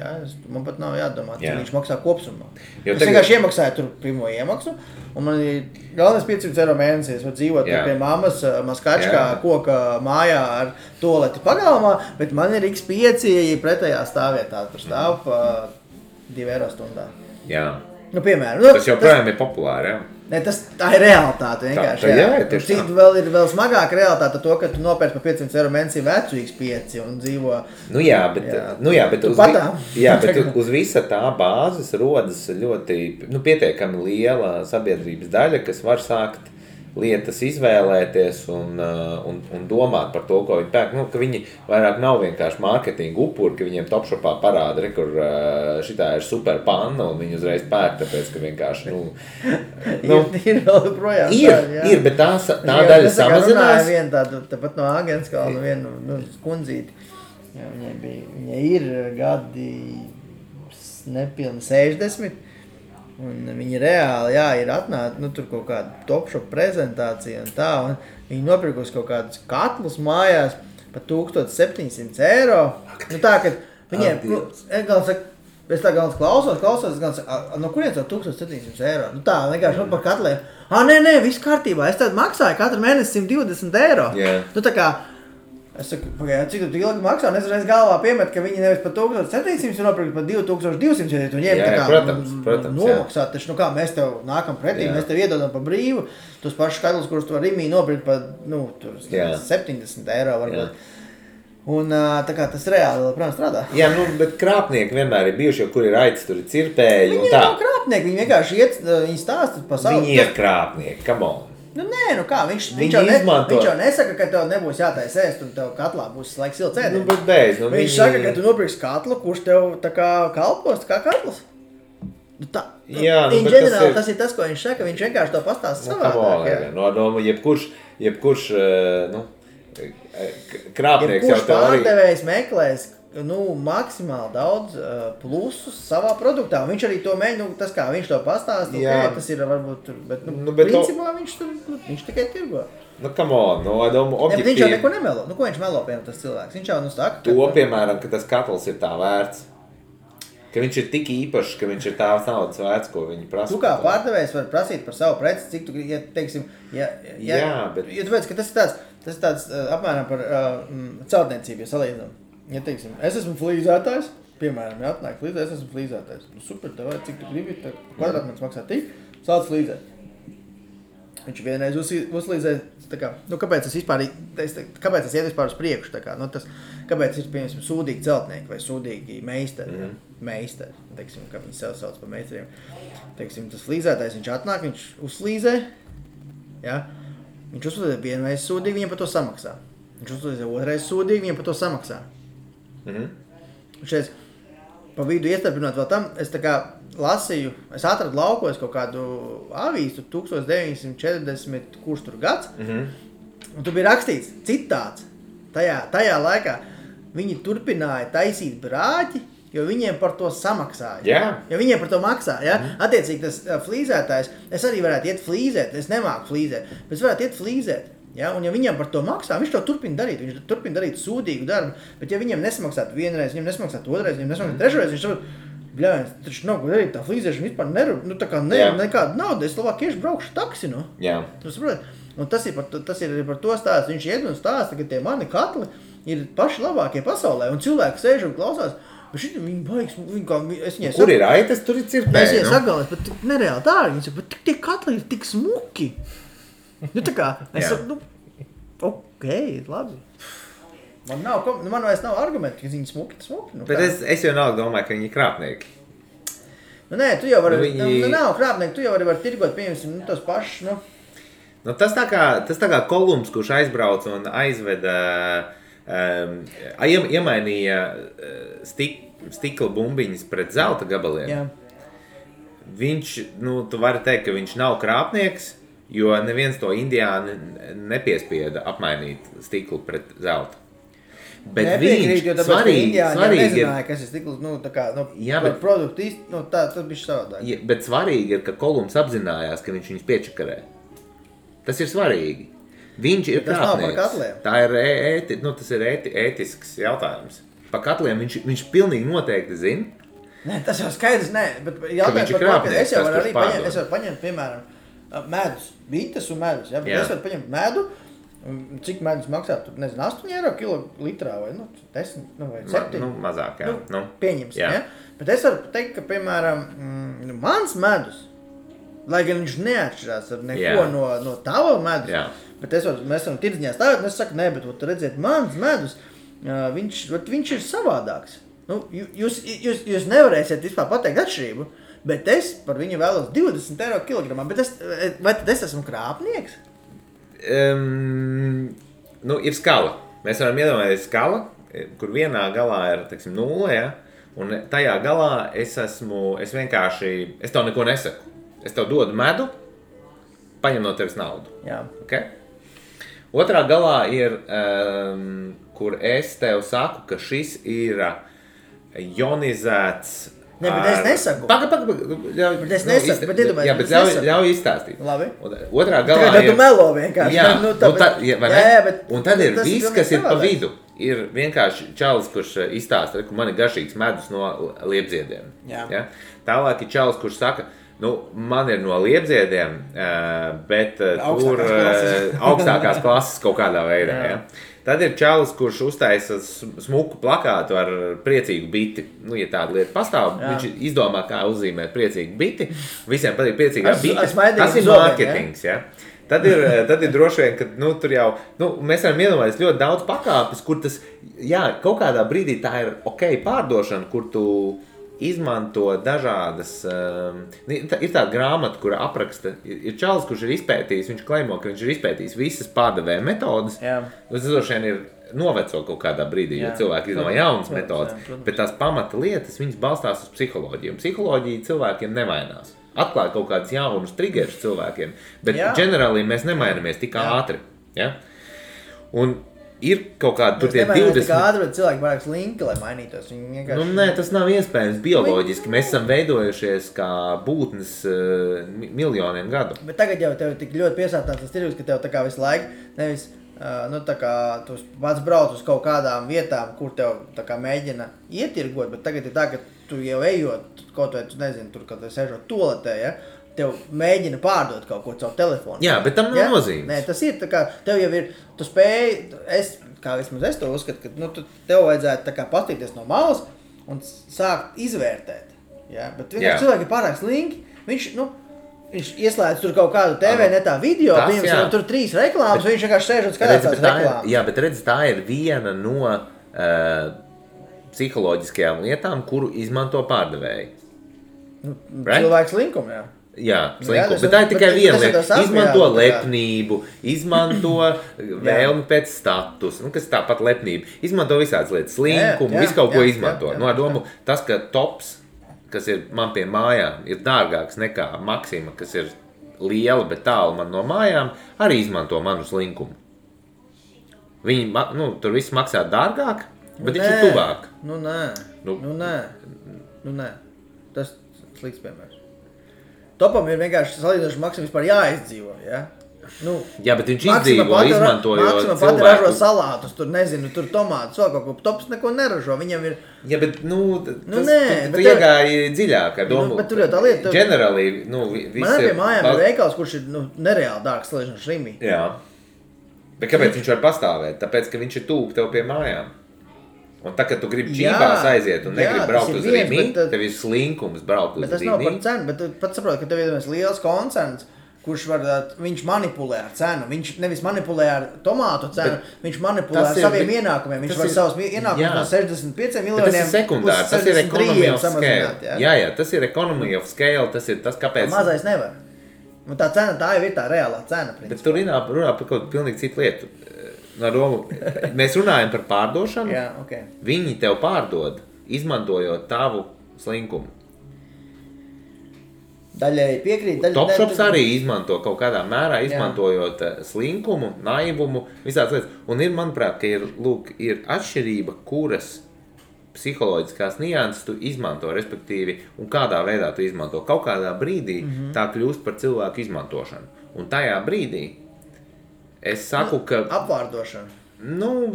Man pat nav jādomā, cik viņš maksā kopsumā. Es vienkārši iemaksāju tur pirmo iemaksu, un man ir galvenais 500 eiro mēnesī. Es varu dzīvot pie mammas Maskačkā koka mājā ar toleti pagalmā, bet man ir X5 pretējā stāvvietā. Tur stāv 2 eiro stundā. Jā. Piemēram. Tas joprojām ir populāri, Tā ir realitāte vienkārši. Vēl smagāka realitāte to, ka tu nopērci par 500 eiro mēnesī vecu X5 un dzīvo... bet uz visa tā bāzes rodas ļoti pietiekami liela sabiedrības daļa, kas var sākt lietas izvēlēties un domāt par to, ko viņi pērk. Ka viņi vairāk nav vienkārši mārketinga upuri, ka viņiem Topshopā parāda, kur šitā ir super panna un viņi uzreiz pērk, tāpēc, ka vienkārši, ir vēl projām. Ir, bet tā daļa samazinās. Tāpat no Āgenskalna vienu kundzīti. Viņai ir gadi nepilni 60. Un viņi reāli, ir atnāca, tur kaut kāda Topshop prezentācija un tā, un viņi nopirkusi kaut kādus katlus mājās par 1700 eiro. Tā, ka viņiem, es tā galvas klausos, es gan saku, no kurienes jau 1700 eiro? Tā, vienkārši par katliem. Nē, viss kārtībā, es tad maksāju katru mēnesi 120 eiro. Tā kā, es saku, cik tu ilgi maksā, un es reiz galvā piemet, ka viņi nevis par 1700 ir nopirkt par 2200, ja tu ņem protams, nomaksāt, taču, mēs tev nākam pretī, mēs tev iedodam par brīvu, tos pašus skaidrus, kurus tu var Rimī nopirkt par, 70 eiro varbūt. Un tā kā tas reāli, protams, strādā. Bet krāpnieki vienmēr ir bijuši, jo kur ir aitas, tur ir cirpēji un tā. Viņi nav krāpnieki, viņi vienkārši viņi stāsta pa savu. Viņi ir krāpnieki, come on. Viņš jau nesaka, ka tev nebūs jātais ēst un tev katlā būs laiks silts ēdiens. Viņš saka, ka tu nopirksi katlu, kurš tev tā kā kalpos, tā kā katls. Tas ir tas, ko viņš saka, viņš vienkārši to pastāsta savādāk. Jebkurš krāpnieks jau tev arī. Pārdevējs meklēs maksimāli daudz plusus savā produktā. Viņš arī to mēģina, tas kā viņš to pastāsta, tas ir varbūt, bet principā viņš tikai tirgo. Come on, objektīvi. Viņš jau neko nemelo. Ko viņš melo, piemēram, tas cilvēks? Viņš jau saka, piemēram, ka tas katls ir tā vērts. Ka viņš ir tik īpašs, ka viņš ir tā naudas vērts, ko viņi prasa. Tu kā pārdevējs var prasīt par savu preci, cik tu, teiksim, bet... tu veids, ka tas ir tāds apmēram par celtniecību, ja salīdzinām. Ja teiksim, es esmu flīzētājs, piemēram, atnāk flīzēt, es esmu flīzētājs. Super, tev vajag, cik tu gribi, kvadrātmetrs maksā tik, sāc flīzēt. Viņš vienreiz uzlīdzēja, kāpēc tas vispār, kāpēc tas iet vispār uz priekšu, kāpēc ir, piemēram, sūdīgi celtnieki vai sūdīgi meistari, meistari, teiksim, kā viņi sev sauc par meistariem. Teiksim, tas flīzētājs, viņš atnāk, viņš uzlīzē, ja? Viņš uzlīzē vienreiz sūdīgi, viņam par to samaksā. Viņš uzlīzē otrreiz sūdīgi, viņam par to samaksā. Šeit, pa vidu iestarpinot vēl tam, es lasīju, es atradu laukos kaut kādu avīstu 1940, kurš tur gads, un tur bija rakstīts citāts. Tajā laikā viņi turpināja taisīt brāķi, jo viņiem par to samaksāja. Yeah. Jo viņiem par to maksā, ja? Attiecīgi tas flīzētājs, es arī varētu iet flīzēt, es nemāku flīzēt, bet es varētu iet flīzēt. Ja? Un ja viņam par to maksā, viņš to turpina darīt, viņš turpina darīt sūdīgu darbu, bet ja viņam nesamaksātu vienreiz, viņam nesamaksātu otrreiz, viņam nesamaksātu trešreiz, viņš saprot, bļāviens, taču nav ko darīt, tā flīzēšana vispār nekāda nauda, es labāk iešu braukšu taksi, nu. Jā. Tu saprot? Un tas ir par to stāsts, viņš iet un stāsta, ka tie mani katli ir paši labākie pasaulē, un cilvēki sēž un klausās, bet šit viņi baigs, es viņai Kur ir aitas, tur ir cirpēji, es viņai sagalēs, bet nereāli dārgi, viņi saka, bet tie katli ir tik smuki. Tā kā, es saku, ok, labi. Man vairs nav argumenti, ka viņi smuki. Bet es jau nav domāju, ka viņi ir krāpnieki. Nē, tu jau vari, nav krāpnieki, tu jau vari tirgot, piemēram, tos pašus, Tas tā kā Kolumbs, kurš aizbrauca un aizveda, iemainīja stikla bumbiņas pret zelta gabaliem. Jā. Viņš, tu vari teikt, ka viņš nav krāpnieks, jo neviens to indiāni nepiespieda apmainīt stiklu pret zelta. Bet viņš svarīgi nezināja, kas ir stikls, par produktu īsti, tas bija savādāk. Bet svarīgi ir, ka Kolumbs apzinājās, ka viņš viņus piečakarē. Tas ir svarīgi. Viņš ir krāpnieks. Tas nav par katliem. Tā ir tas ir ētisks jautājums. Par katliem viņš pilnīgi noteikti zina. Nē, tas jau skaidrs, bet jautājums par katliem. Es jau varu paņemt, piemēram, medus, bites un medus. Ja? Es varu paņemt medu, cik medus maksā, tur, nezinu, 8 eiro kilolitrā vai 10 vai 7. Mazāk, jā. Pieņems, ja? Bet es varu teikt, ka, piemēram, mans medus, lai gan viņš neatšķirās ar neko no tava medus, bet mēs varam tirdziņā stāvēt, un es saku, nē, bet tu redziet, mans medus, viņš ir savādāks. Jūs nevarēsiet vispār pateikt atšķirību, bet es par viņu vēlos 20 eiro kilogramā, bet vai tad es esmu krāpnieks? Ir skala. Mēs varam iedomāties skala, kur vienā galā ir, 0, ja? Un tajā galā es vienkārši, es tev neko nesaku. Es tev dodu medu, paņem no tevis naudu. Jā. Okay? Otrā galā ir, kur es tev saku, ka šis ir ionizēts. Ne, bet es nesaku. Bet es nesaku, bet iedomājies. Jā, bet ļauj izstāstīt. Labi. Otrā galā ir. Tu melo vienkārši. Jā, un tad ir viss, kas ir pa vidu. Ir vienkārši čalis, kurš izstāsta, ka man ir garšīgs medus no liepziediem. Jā. Ja? Tālāk ir čalis, kurš saka, man ir no liepziediem, bet tur augstākās klases kaut kādā veidā. Ja? Tad ir čalis, kurš uztaisa smuku plakātu ar priecīgu biti. Ja tāda lieta pastāv, viņš izdomā, kā uzzīmēt priecīgu biti. Visiem patīk priecīgā bite. Tas ir marketings. Ja? Tad ir droši vien, ka tur jau, mēs varam iedomāties ļoti daudz pakāpes, kur tas, kaut kādā brīdī tā ir ok pārdošana, kur tu izmanto dažādas, ir tāda grāmata, kura apraksta, ir čalis, kurš ir izpētījis, viņš klaimo, ka viņš ir izpētījis visas pārdevēja metodas, tas droši vien ir noveco kaut kādā brīdī, jo cilvēki izdomā jaunas metodas, bet tās pamata lietas, viņas balstās uz psiholoģiju, un psiholoģija cilvēkiem nevainās. Atklāja kaut kādus jaunus triggerus cilvēkiem, bet ģenerāli mēs nemainamies tik ātri. Ja? Un ir kaut kāda, tur tie 20... Tik ātri, bet cilvēki vairāk slinki, lai mainītos. Vienkārši... Nē, tas nav iespējams bioloģiski. Mēs esam veidojušies kā būtnes miljoniem gadu. Bet tagad jau tev tik ļoti piesātināts tas tirgus, ka tev tā kā visu laiku nevis, tā kā tu pats brauc uz kaut kādām vietām, kur tev tā kā mēģina ietirgot, bet tagad ir tā, ka tu jau ejot, kaut vai tu nezini, tur, kad tu sežot toaletē, ja, tev mēģina pārdot kaut ko caur telefonu. Jā, bet tam nav nozīmes. Nē, tas ir tā kā, tev jau ir, tu spēji, kā vismaz es to uzskatu, ka tev vajadzētu tā kā pastīties no malas un sākt izvērtēt. Ja? Bet vienkārši cilvēki ir pārāk slinki, viņš, Viņš ieslēdz tur kaut kādu TV netā video, piemēram, tur 3 reklāmas, viņš vienkārši sēž un skatās tās reklāmas. Jā, bet redz, tā ir viena no psiholoģiskajām lietām, kuru izmanto pārdevēji. Cilvēks linkumu, jā. Jā, slinkumu, bet tā ir tikai viena lieta. Izmanto lepnību, izmanto vēlmi pēc status, kas tāpat lepnība. Izmanto visādas lietas, slinkumu, visu kaut ko izmanto. No domu, tas, ka tops, kas ir man pie mājām, ir dārgāks nekā Maksima, kas ir liela, bet tālu man no mājām, arī izmanto manu slinkumu. Viņi, tur viss maksā dārgāk, bet viņš ir tuvāk. Nē. Tas slikts piemērs. Topam ir vienkārši salīdzinoši Maksim vispār jāizdzīvo, ja? Jā, bet viņš izdzīvo, izmantojot cilvēku. Maksim pati ražo salātus, tur nezinu, tur tomātus, vēl kaut ko. Tops neko neražo, viņam ir... Jā, bet, tu iegāji dziļāk ar domu. Bet tur jau tā lieta... Generally, man arī pie mājām ir veikals, kurš ir, nereāli dārgs salīdzinoši Rimī. Jā. Bet kāpēc viņš var pastāvēt? Tāpēc, ka viņš ir tūp tev pie mājām. Un tā, kad tu gribi čībās aiziet un negribi braukt uz Rimi, tev ir slinkums braukt uz Rimi. Bet tas nav par cenu, bet tu pat saproti, ka tev ir liels koncerns, kurš viņš manipulē ar cenu. Viņš nevis manipulē ar tomātu cenu, viņš manipulē ar saviem ienākumiem. Viņš var savus ienākumus no 65 miljoniem tas ir sekundāri, tas ir economy of scale. Jā, tas ir economy of scale, tas ir tas, kāpēc... Mazais nevar. Un tā cena, tā jau ir tā reālā cena. Principā. Bet tu runā par kaut pilnīgi citu lietu. No domu, mēs runājam par pārdošanu, jā, okay. Viņi tev pārdod, izmantojot tavu slinkumu. Daļai piekrīt. Topshops arī izmanto kaut kādā mērā, izmantojot slinkumu, naivumu, visādas lietas. Un ir, manuprāt, ka ir atšķirība, kuras psiholoģiskās nianses tu izmanto, respektīvi, un kādā veidā tu izmanto. Kaut kādā brīdī tā kļūst par cilvēku izmantošanu. Un tajā brīdī es saku, ka... Apvārdošana.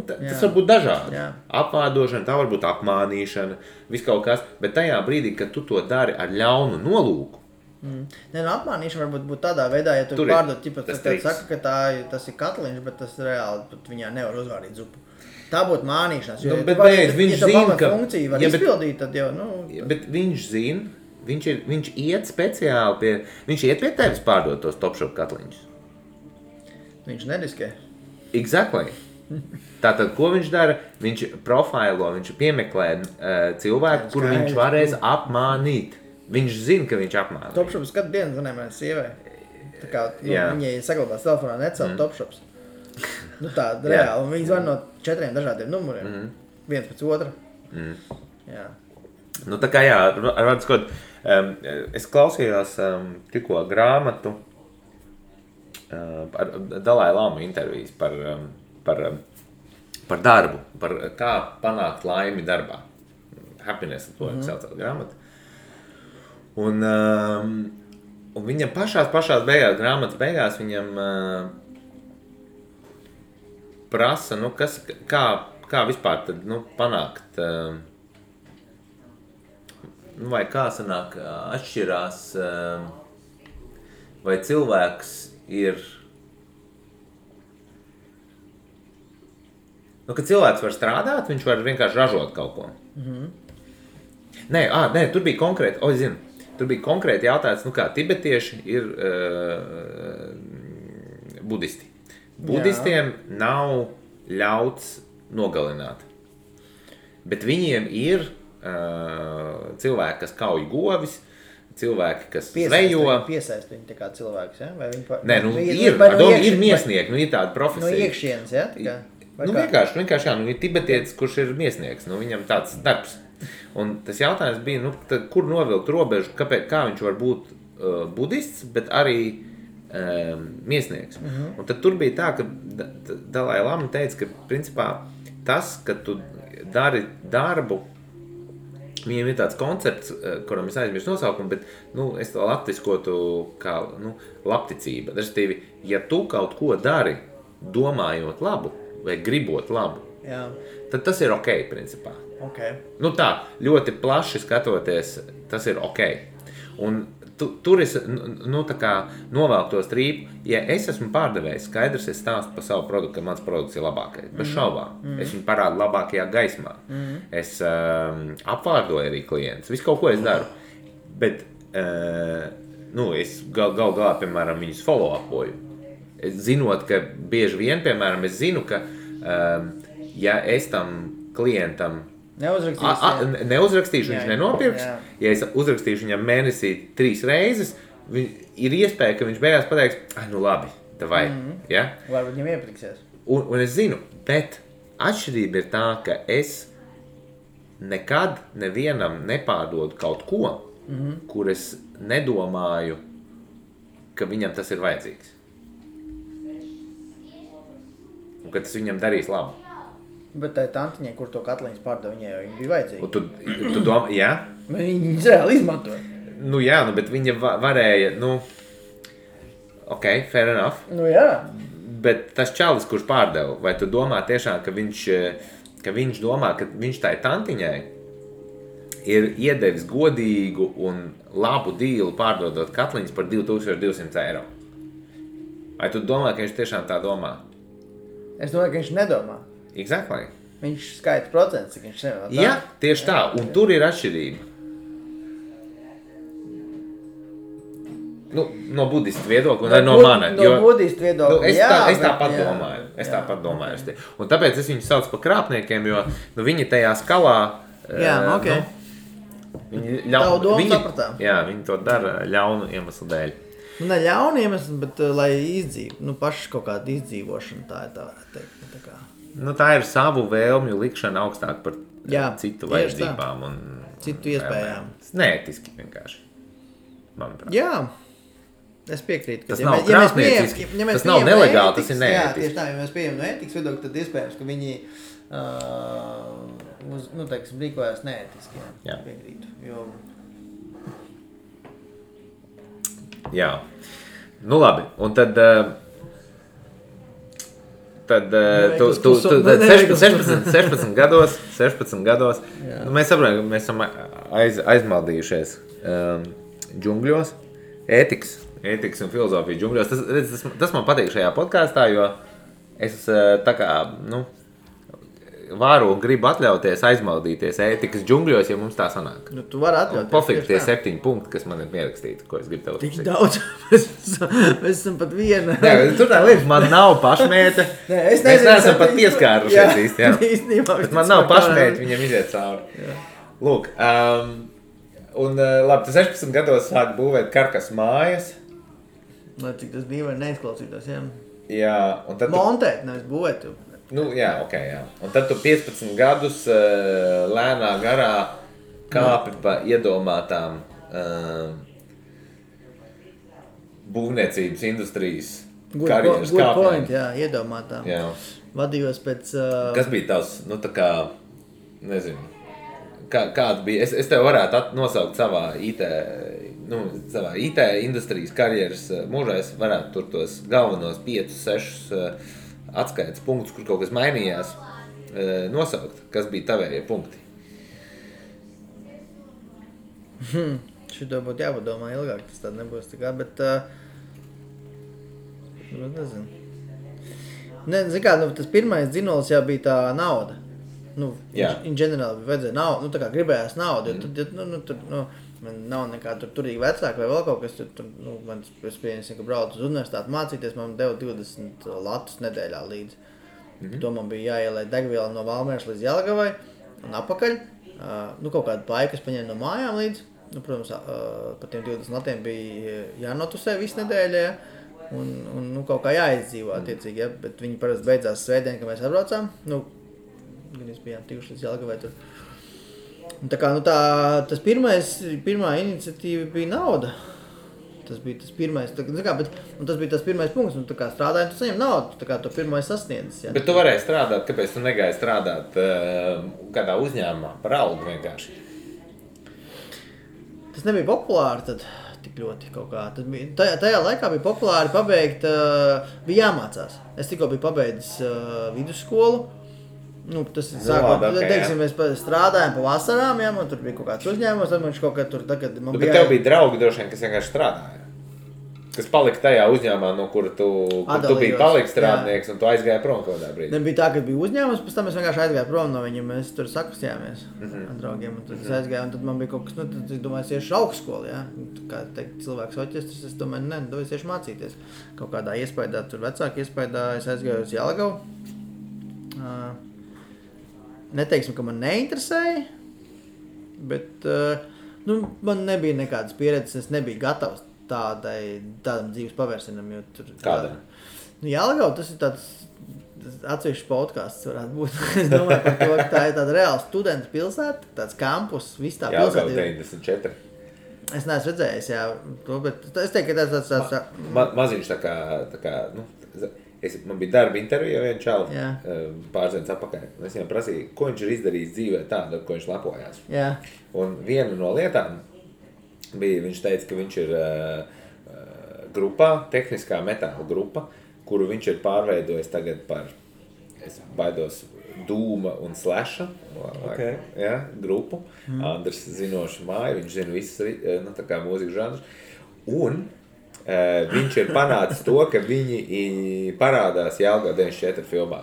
Tas var būt dažādi. Jā. Apvārdošana, tā var būt apmānīšana, viss kaut kas, bet tajā brīdī, kad tu to dari ar ļaunu nolūku. Apmānīšana varbūt būt tādā veidā, ja tu pārdod, saka, ka tas ir katliņš, bet tas reāli pat viņā nevar uzvārīt zupu. Tā būtu mānīšanas, jo viņš zina, ka funkcija var izpildīt, tad jau, Bet viņš zina, viņš iet speciāli pie, viņš iet pie tevis pārdot tos Topshop katliņus. Viņš neriskē. Exactly. Tātad, ko viņš dara? Viņš profailo, viņš piemeklē cilvēku, kuru viņš varēs apmānīt. Viņš zina, ka viņš apmānīt. Topshops katru dienu zvanēja manai sievai. Tā kā viņai saglabās telefonā necelt Topshops. Tāda reāli. Un viņi zvan no 4 dažādiem numuriem. Viens pēc otra. Jā. Tā kā jā, es klausījos tikko grāmatu par Dalai Lama intervijas par darbu, par kā panākt laimi darbā. Happiness, to saucās grāmatu. Un viņam pašās beigās, grāmatas beigās, viņam prasa, kā vispār tad, panākt, vai kā sanāk atšķirās, vai cilvēks ir, ka cilvēks var strādāt, viņš var vienkārši ražot kaut ko. Nē, tur bija konkrēti, tur bija konkrēti jautājums, kā tibetieši ir budisti. Budistiem nav ļauts nogalināt, bet viņiem ir cilvēki, kas kauj govis, cilvēki, kas zvejo. Piesaist viņu tā kā cilvēks, ja? Vai viņi Nē, ir miesnieki, ir tāda profesija. No iekšienes, ja? Vienkārši, jā, ir tibetietis, kurš ir miesnieks, viņam tāds darbs. Un tas jautājums bija, kur novilkt robežu, kā viņš var būt budists, bet arī miesnieks. Un tad tur bija tā, ka Dalai Lama teica, ka principā tas, ka tu dari darbu, viņiem ir tāds koncepts, kuram es aizmirstu nosaukumu, bet es to latviskotu kā labticība. Respektīvi, ja tu kaut ko dari, domājot labu vai gribot labu, tad tas ir ok, principā. Okay. Tā, ļoti plaši skatoties, tas ir ok. Un tur es tā kā novelku to strīpu. Ja es esmu pārdevējs, skaidrs, es stāstu par savu produktu, ka mans produkts ir labākais. Bez šaubām. Es viņu parādu labākajā gaismā. Es apvārdoju arī klientus. Visu kaut ko es daru. Bet es galā, piemēram, viņus follow-upoju. Zinot, ka bieži vien, piemēram, es zinu, ka ja es tam klientam neuzrakstīšu, viņš nenopirks. Ja es uzrakstīšu viņam mēnesī 3 reizes, ir iespēja, ka viņš beigās pateiks, nu labi, davai. Ja? Varbūt viņam iepriksies. Un es zinu, bet atšķirība ir tā, ka es nekad nevienam nepārdodu kaut ko, kur es nedomāju, ka viņam tas ir vajadzīgs. Un ka tas viņam darīs labu. Bet tai tantiņai, kur to katliņas pārdeva, viņai jau bija vajadzīga. Un tu domā, jā? Viņa reāli izmantoja. Nu jā, bet viņa varēja, ok, fair enough. Nu jā. Bet tas čalis, kurš pārdeva, vai tu domā tiešām, ka viņš domā, ka viņš tai tantiņai ir iedevis godīgu un labu dīlu pārdodot katliņas par 2200 eiro? Vai tu domā, ka viņš tiešām tā domā? Es domāju, ka viņš nedomā. Exactly. Viņš skaita procents, cik viņš nevar. Jā, tieši tā, un tur ir atšķirība. No budistu viedokļa un no mana. No budistu viedokļa, es tāpat domāju. Tāpat domāju. Un tāpēc es viņus saucu par krāpniekiem, jo viņi tajā skalā... Jā, ok. Tavu domu sapratām. Jā, viņi to dara ļaunu iemeslu dēļ. Ne ļaunu iemeslu, bet lai izdzīvo. Paši kaut kāda izdzīvošana tā ir tā teikt. Tā ir savu vēlmju likšana augstāk par citu vajadzībām un citu iespējām. Neētiski vienkārši, manuprāt. Jā, es piekrītu. Tas nav krāpnieciski, tas nav nelegāli, tas ir neētiski. Jā, tieši tā, ja mēs pieejam no ētikas viedokļa, tad iespējams, ka viņi rīkojās neētiski. Jā. Piekrītu, jo... Jā, labi, un tad... Tad 16 gados mēs saprotam, ka mēs esam aizmaldījušies džungļos, ētikas un filozofijas džungļos. Tas man patīk šajā podkāstā, jo es tā kā, varu un gribu atļauties aizmaldīties ētikas džungļos, ja mums tā sanāk. Tu vari atļauties. Pofīgi tie 7 punkti, kas man ir pierakstīti, ko es gribu tev uzsākt. Tik daudz, mēs esam pat viena. Nē, tur tā liekas, man nav pašmēte. Mēs neesam pat pieskārušies īsti, jā. Bet man nav pašmēte, viņam iziet cauri. Lūk, un labi, tu 16 gados sāk būvēt karkas mājas. Lai cik tas dīvaini neizklausītos, jā. Jā, un tad montēt, nevis būvēt. Jā, ok, jā. Un tad tu 15 gadus lēnā garā kāpi pa iedomātām būvniecības industrijas karjeras kāpnēm. Good point, jā, iedomātām. Jā. Vadījos pēc... Kas bija tavs, tā kā, nezinu, kāds bija, es tev varētu nosaukt savā IT industrijas karjeras mūžā, es varētu tur tos galvenos 5-6 atskaites punktus, kur kaut kas mainījās, nosaukt, kas bija tavējie punkti. Šito būtu jāpadomā ilgāk, tas tād nebūs tā kā, bet nezinu. Zin kā, tas pirmais dzinolis jau bija tā nauda. In general vajadzēja naudu, tā kā gribējās naudu, jo man nav nekāda turīga vecāka vai vēl kaut kas, man es pieņemsim, ka braucu uz universitāti mācīties, man deva 20 latus nedēļā līdz. To man bija jāielai degviela no Valmieras līdz Jelgavai un apakaļ. Kaut kādu paiku es paņēmu no mājām līdz. Protams, par tiem 20 latiem bija jānotusē visu nedēļu, un kaut kā jāizdzīvo attiecīgi, ja? Bet viņi parasti beidzās svētdien, kad mēs atbraucām. Gan mēs bijām tikuši līdz Jelgavai tur. Un tā kā, tas pirmā iniciatīva bija nauda. Tas bija tas pirmais, tas bija tas pirmais punkts, tā kā strādājot, tu saņem naudu, tā kā to pirmais sasniedzis. Ja. Bet tu varēji strādāt, kāpēc tu negāji strādāt kādā uzņēmumā par algu vienkārši? Tas nebija populāri tad tik ļoti kaut kā. Tas bija, tajā laikā bija populāri pabeigt, bija jāmācās. Es tikko biju pabeidzis vidusskolu. Tas ir sākot, teiksim, mēs strādājām pa vasarām, ja, man tur bija kaut kāds uzņēmums, tad man kaut kā tur tagad... Bet tev bija draugi droši vien, kas vienkārši strādāja? kas palika tajā uzņēmumā, no kura tu biji paliks strādnieks, un tu aizgāji prom kaut kādā brīdī. Nebija tā, ka bija uzņēmums, pēc tam es vienkārši aizgāju prom no viņiem, mēs tur sakustījāmies ar draugiem, un tad es aizgāju, un tad man bija kaut kas, tad es domāju, es iešu augstskolu, jā, kā teikt, cilvēks oķestris, es domāju, es iešu mācīties. Kaut kādā iespējā, tur vecāki iespējā, es aizgāju uz Jelgavu. Neteiksim, ka man neinteresēja, bet man nebija nekādas pieredzes, es nebiju gatavs tādam dzīves pavērsienam, jo tur... Kādam? Jelgava, tas ir tāds atsevišķs podcasts varētu būt. Es domāju par to, ka tā ir tāda reāla studentu pilsēta, tāds kampus, viss tā pilsēta. Jelgava 94. Es neesmu redzējis, jā, to, bet es teiktu, ka tāds... Maziņš tā kā man bija darba intervija vienu čalu pārzienas apakaļ. Es viņam prasīju, ko viņš ir izdarījis dzīvē tādu, ar ko viņš lepojās. Jā. Un viena no lietām bija, viņš teica, ka viņš ir grupā, tehniskā metāla grupa, kuru viņš ir pārveidojis tagad par, es baidos, Dūma un Slasha grupu. Andrs zinoši māju, viņš zina visas tā kā mūzikas žanrus. Un viņš ir panācis to, ka viņi parādās Jelgava 94 filmā.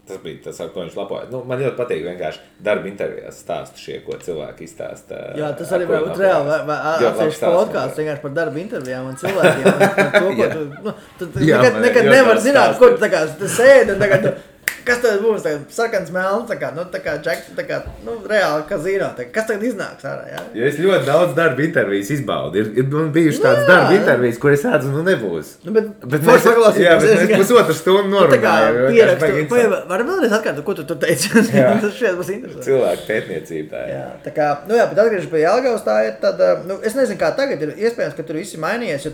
Tas bija tas, ar ko viņš lapojas. Man ļoti patīk vienkārši darba intervijās stāstu šie, ko cilvēki izstāsta. Jā, tas arī var būt reāli. Atsevišķi podcasts vienkārši par darba intervijām un cilvēkiem. Tu nekad nevar zināt, ko tu tā kā sēdi un tagad... Kas tad būs? Sarkans melns, tā kā Jack, reāli kazino. Kas tagad iznāks ārā, jā? Ja es ļoti daudz darba intervijas izbaudu. Ir bijuši tādas darba intervijas, kur es redzu, nebūs. Bet mēs pusotru stundu norunājam. Varam vēlreiz atkārtot, ko tu tur teici? Tas šeit būs interesanti. Cilvēku pētniecība tā ir. Jā, tā kā, bet atgriežas pie Jelgavas, tā ir tāda, es nezinu, kā tagad ir iespējams, ka tur viss ir mainījies, jo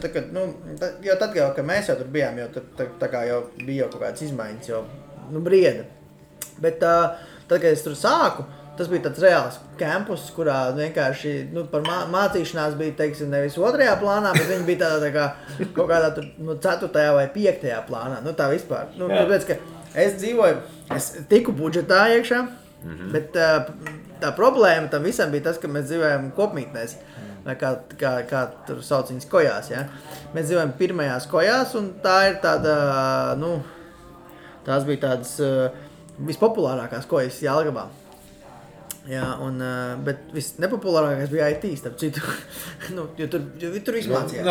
tad, kad mēs jau tur bijām, jo tā kā jau bija kaut kādas izmaiņas, jo brieda. Bet tad, kad es tur sāku, tas bija tāds reāls campus, kurā vienkārši par mācīšanās bija, teiksim, nevis 2. plānā, bet viņi bija tādā tā kā kaut kādā tur 4. vai 5. plānā. Tā vispār. Tāpēc, ka es dzīvoju, es tiku budžetā iekšā, bet tā problēma tam visam bija tas, ka mēs dzīvojam kopmītnēs. Vai kā tur sauc viņas kojās, ja? Mēs dzīvojam pirmajās kojās, un tā ir tāda, tās bija tādas vispopulārākās kojas Jelgavā. Jā, bet visnepopulārākais bija IT, starp citu. Jo tur viss mācījās.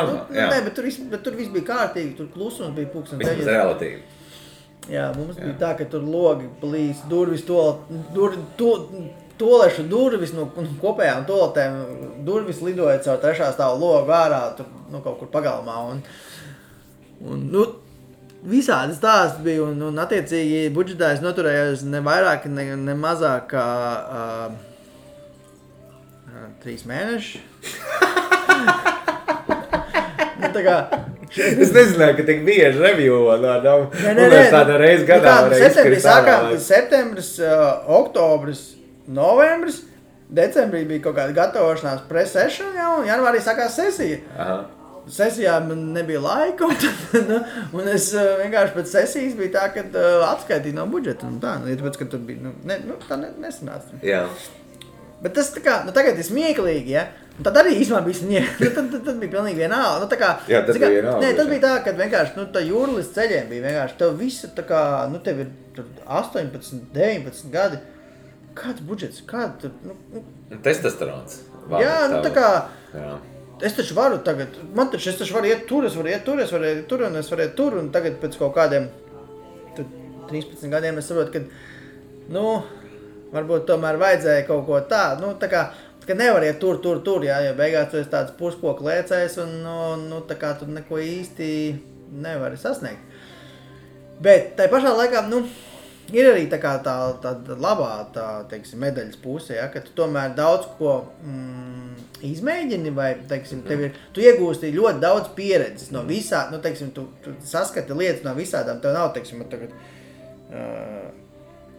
Bet tur viss bija kārtīgi, tur klusums bija pulksten 9. Vismaz relatīvi. Jā, mums bija tā, ka tur logi plīs, durvis, tolešu durvis no kopējām toletēm, durvis lidoja caur 3. stāvu logu ārā, tur kaut kur pagalmā. Visādi stāsti bija, un attiecīgi budžetā es noturējos ne vairāk, ne mazāk kā 3 mēneši. Es nezināju, ka tik bieži reviewo tāda reize gadā. Septembris, oktobris, novembris, decembrī bija kaut kāda gatavošanās pre-session, un janvārī sākās sesija. Aha. Sesijā man nebija laika, un es vienkārši pēc sesijas bija tā, ka atskaitīju no budžeta. Tāpēc, ka tur bija, tā nesanāca. Jā. Bet tas tā kā, tagad ir smieklīgi, ja? Un tad arī īstenībā bija smieklīgi. Tad bija pilnīgi vienalga. Jā, tas bija vienalga. Tas bija tā, ka vienkārši, tā jūrlis ceļiem bija vienkārši, tev visu tā kā, tev ir 18, 19 gadi. Kāds budžets? Kāds tur, Testosterons. Jā, tā kā... Jā. Es taču varu tagad, es taču varu iet tur, es varu iet tur, un tagad pēc kaut kādiem 13 gadiem es saprotu, ka, varbūt tomēr vajadzēja kaut ko tādu, tā kā nevar iet tur, jā, jo beigās tu esi tāds puskoku lēcējs, un, tā kā tu neko īsti nevari sasniegt. Bet tai pašā laikā, ir arī tā kā tā labā, teiksim, medaļas puse, ja, ka tu tomēr daudz ko izmēģini, vai, teiksim, tu iegūsti ļoti daudz pieredzes no visā, teiksim, tu saskati lietas no visādām, tev nav, teiksim, tagad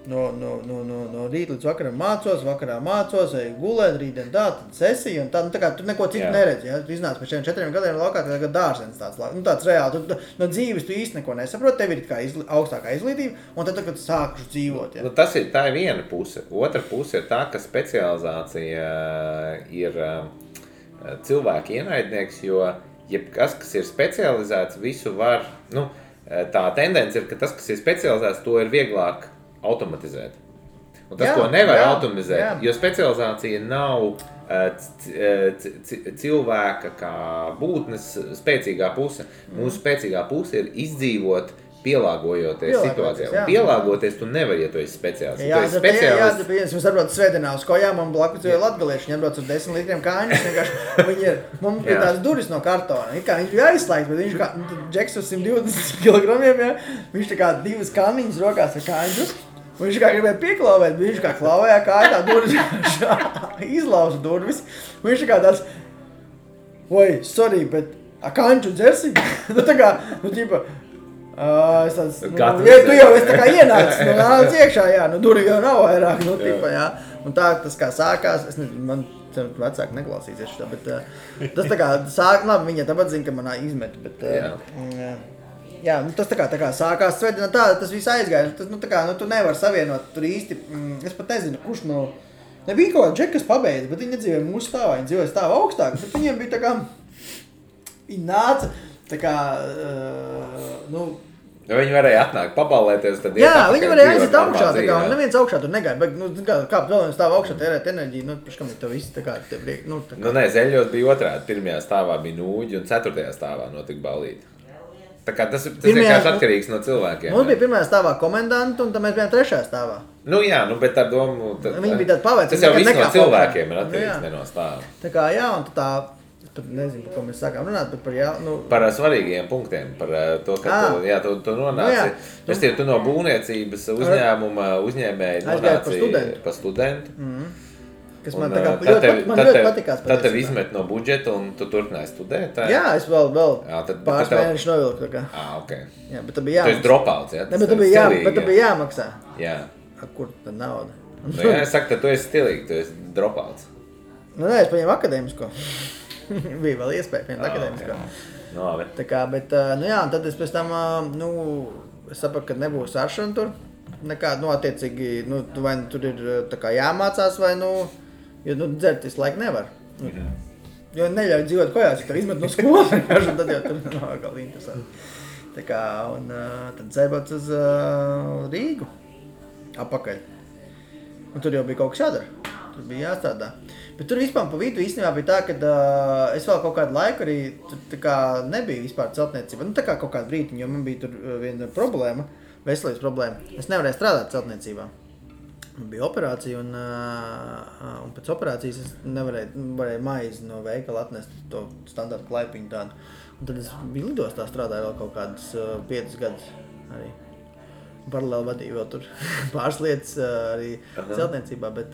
no rīt līdz vakaram mācos, vai gulēt, rītdien tad sesija, un tā kā tu neko citu neredzi, ja, tu iznāc pēc 4 gadiem laukā, tā kā dārzens tāds reāli, no dzīves tu īsti neko nesaproti, tev ir kā augstākā izglītība, un tad, kad sākuši dzīvot, ja. Tā ir viena puse. Otra puse ir tā, ka specializācija ir cilvēku ienaidnieks, jo jebkas, kas ir specializēts, visu var, tā tendence ir, ka tas, kas ir specializēts, to ir vieglāk automatizēt. Un tas, ko nevar automatizēt, jo specializācija nav cilvēka kā būtnes spēcīgā puse. Mūsu spēcīgā puse ir izdzīvot, pielāgojoties situācijā. Un pielāgoties tu nevar, ja tu esi speciālists. Jā, mēs atbrauc svētdienā uz kojām un blakus jau latgalieši, viņi atbrauc uz 10 litriem kāņus. Mums bija tās duris no kartona. Viņš bija aizslēgts, bet viņš kā Džeks uz 120 kilogramiem, viņš tā kā 2 kanniņas rokās ar kāņus. Viņš kā gribēja pieklauvēt, bet viņš kā klauvējā kāja tā durvis, izlauza durvis. Viņš tā kā tāds, sorry, bet kāņu dzersi? Es tāds, tu jau esi tā kā ienācis, nāc iekšā, duri jau nav vairāk, Un tā tas kā sākās, es nezinu, man vecāki neklausīsies šitā, bet tas tā kā sāk, labi, viņa tāpat zina, ka manā izmet, bet tas tā kā sākās svētdienā tā, tas viss aizgāja, tas, tā kā, tu nevar savienot tur īsti, es pat nezinu, kurš nebija kaut kā džeki, kas pabeidz, bet viņi nedzīvoja mūsu stāvā, viņi dzīvoja stāvā augstāk, bet viņiem bija tā kā, viņi nāca, tā kā, viņi varēja atnākt, pabalēties, tad viņi varēja aiziet augšā, tā kā, un neviens augšā tur negāja, bet, kāp vēl viens stāv augšā, tērēt enerģiju, kam ir to viss, tā kā, te priek, tā kā. Nē, Zeļļos bija otrādi, pirmajā stāvā bija nūģi, un 4. stāvā notika ballīte. Tā kā tas vienkārši atkarīgs no cilvēkiem. Mums bija 1. stāvā komendanti, un tad mēs bijām 3. stāvā. Bet ar domu... Viņi bija tādi pavēci. Tas jau viss no cilvēkiem ir atkarīgs, ne no stāva. Tā kā, un tā... Nezinu, par ko mēs sākām runāt, bet par svarīgiem punktiem, par to, ka tu nonāci. Tu no būvniecības uzņēmuma uzņēmēji nonāci par studentu. Kas man ļoti patikās. Tad tev izmet no budžeta un tu turpināji studēt? Jā, es vēl pāris mēnešus novilku. Okay. Jā, bet tad bija jāmaksā. Tu esi dropouts, jā? Ne, bet tad bija jāmaksā. Jā. Kur tad nauda? Es saku, ka tu esi stilīgi, tu esi dropouts. Nē, es paņēmu akadēmisko. Bija vēl iespēja pieņemt akadēmisko. Okay. Tā kā, bet, un tad es pēc tam, es sapratu, ka nebūs aršana tur. Nekā, attiecīgi, vai tur ir tā kā jāmācās, vai, jo, dzert visu laiku nevar. Jo neļauj dzīvot kojās, ja tev izmet no skolas, tad jau tur nav vēl interesanti. Tā kā, un tad dzērbot uz Rīgu apakaļ. Un tur jau bija kaut kas jādara. Tur bija jāstrādā. Bet tur vispār pa vidu īstenībā bija tā, ka es vēl kaut kādu laiku arī tur tā kā nebija vispār celtniecība. Tā kā kaut kādu brītiņu, jo man bija tur viena problēma, veselības problēma. Es nevarēju strādāt celtniecībā. Man bija operācija un pēc operācijas es varēju maizi no veikala atnest to standartu klaipiņu tādu. Un tad es biju lidostā strādāju vēl kaut kādus 5 gadus arī. Paralēli vadīju vēl tur pāris lietas arī celtniecībā, bet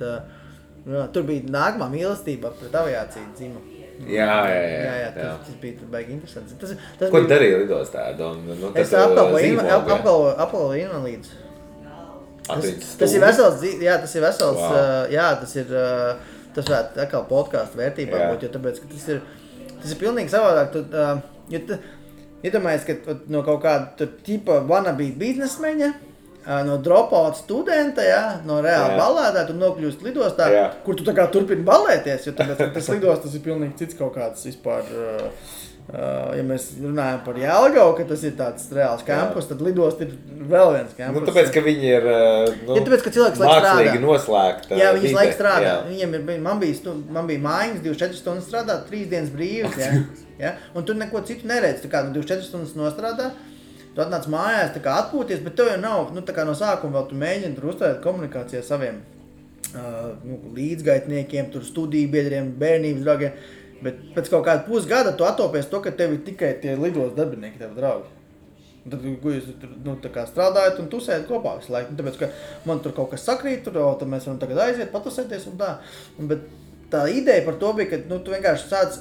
tur bija nākamā mīlestība pret aviāciju dzima. Jā, tas bija baigi interesants. Ko tu darīji lidostā? Es apkalpoju invalīdus. Tas ir vesels, tas ir vesels, tas varētu atkal podcastu vērtībā būt, jo tāpēc, ka tas ir pilnīgi savādāk. Iedomājies, ka no kaut kāda tipa wannabe biznesmeņa, no dropout studenta, no reāla ballētā, tu nokļūst lidostā, kur tu tā kā turpini ballēties, jo tāpēc, tas lidostas ir pilnīgi cits kaut kāds vispār, ja mēs runājam par Jelgavu, ka tas ir tāds reāls kampus, tad lidost ir vēl viens kampus. Tāpēc, ka viņi ir tāpēc, ka cilvēks laik strādā. Mākslīgi noslēgt. Jā, viņas laik strādā. Man bija mājiņas 24 stundas strādāt, 3 dienas brīvas, un tu neko citu neredz, tā kā 24 stundas nostrādā. Tu atnāc mājās, tā kā atpūties, bet tev jau nav, tā kā no sākuma vēl tu mēģini tur uzturēt komunikāciju ar saviem līdzgaitniekiem, tur studiju biedriem, bērnības draugiem, bet pēc kaut kāda pusgada tu attopies to, ka tev ir tikai tie lidos darbinieki, tev draugi. Un tad, jūs tā kā strādājat un tusējat kopā visu laiku, tāpēc, ka man tur kaut kas sakrīt, tad mēs varam tagad aiziet, patusēties un tā. Bet tā ideja par to bija, ka tu vienkārši sāc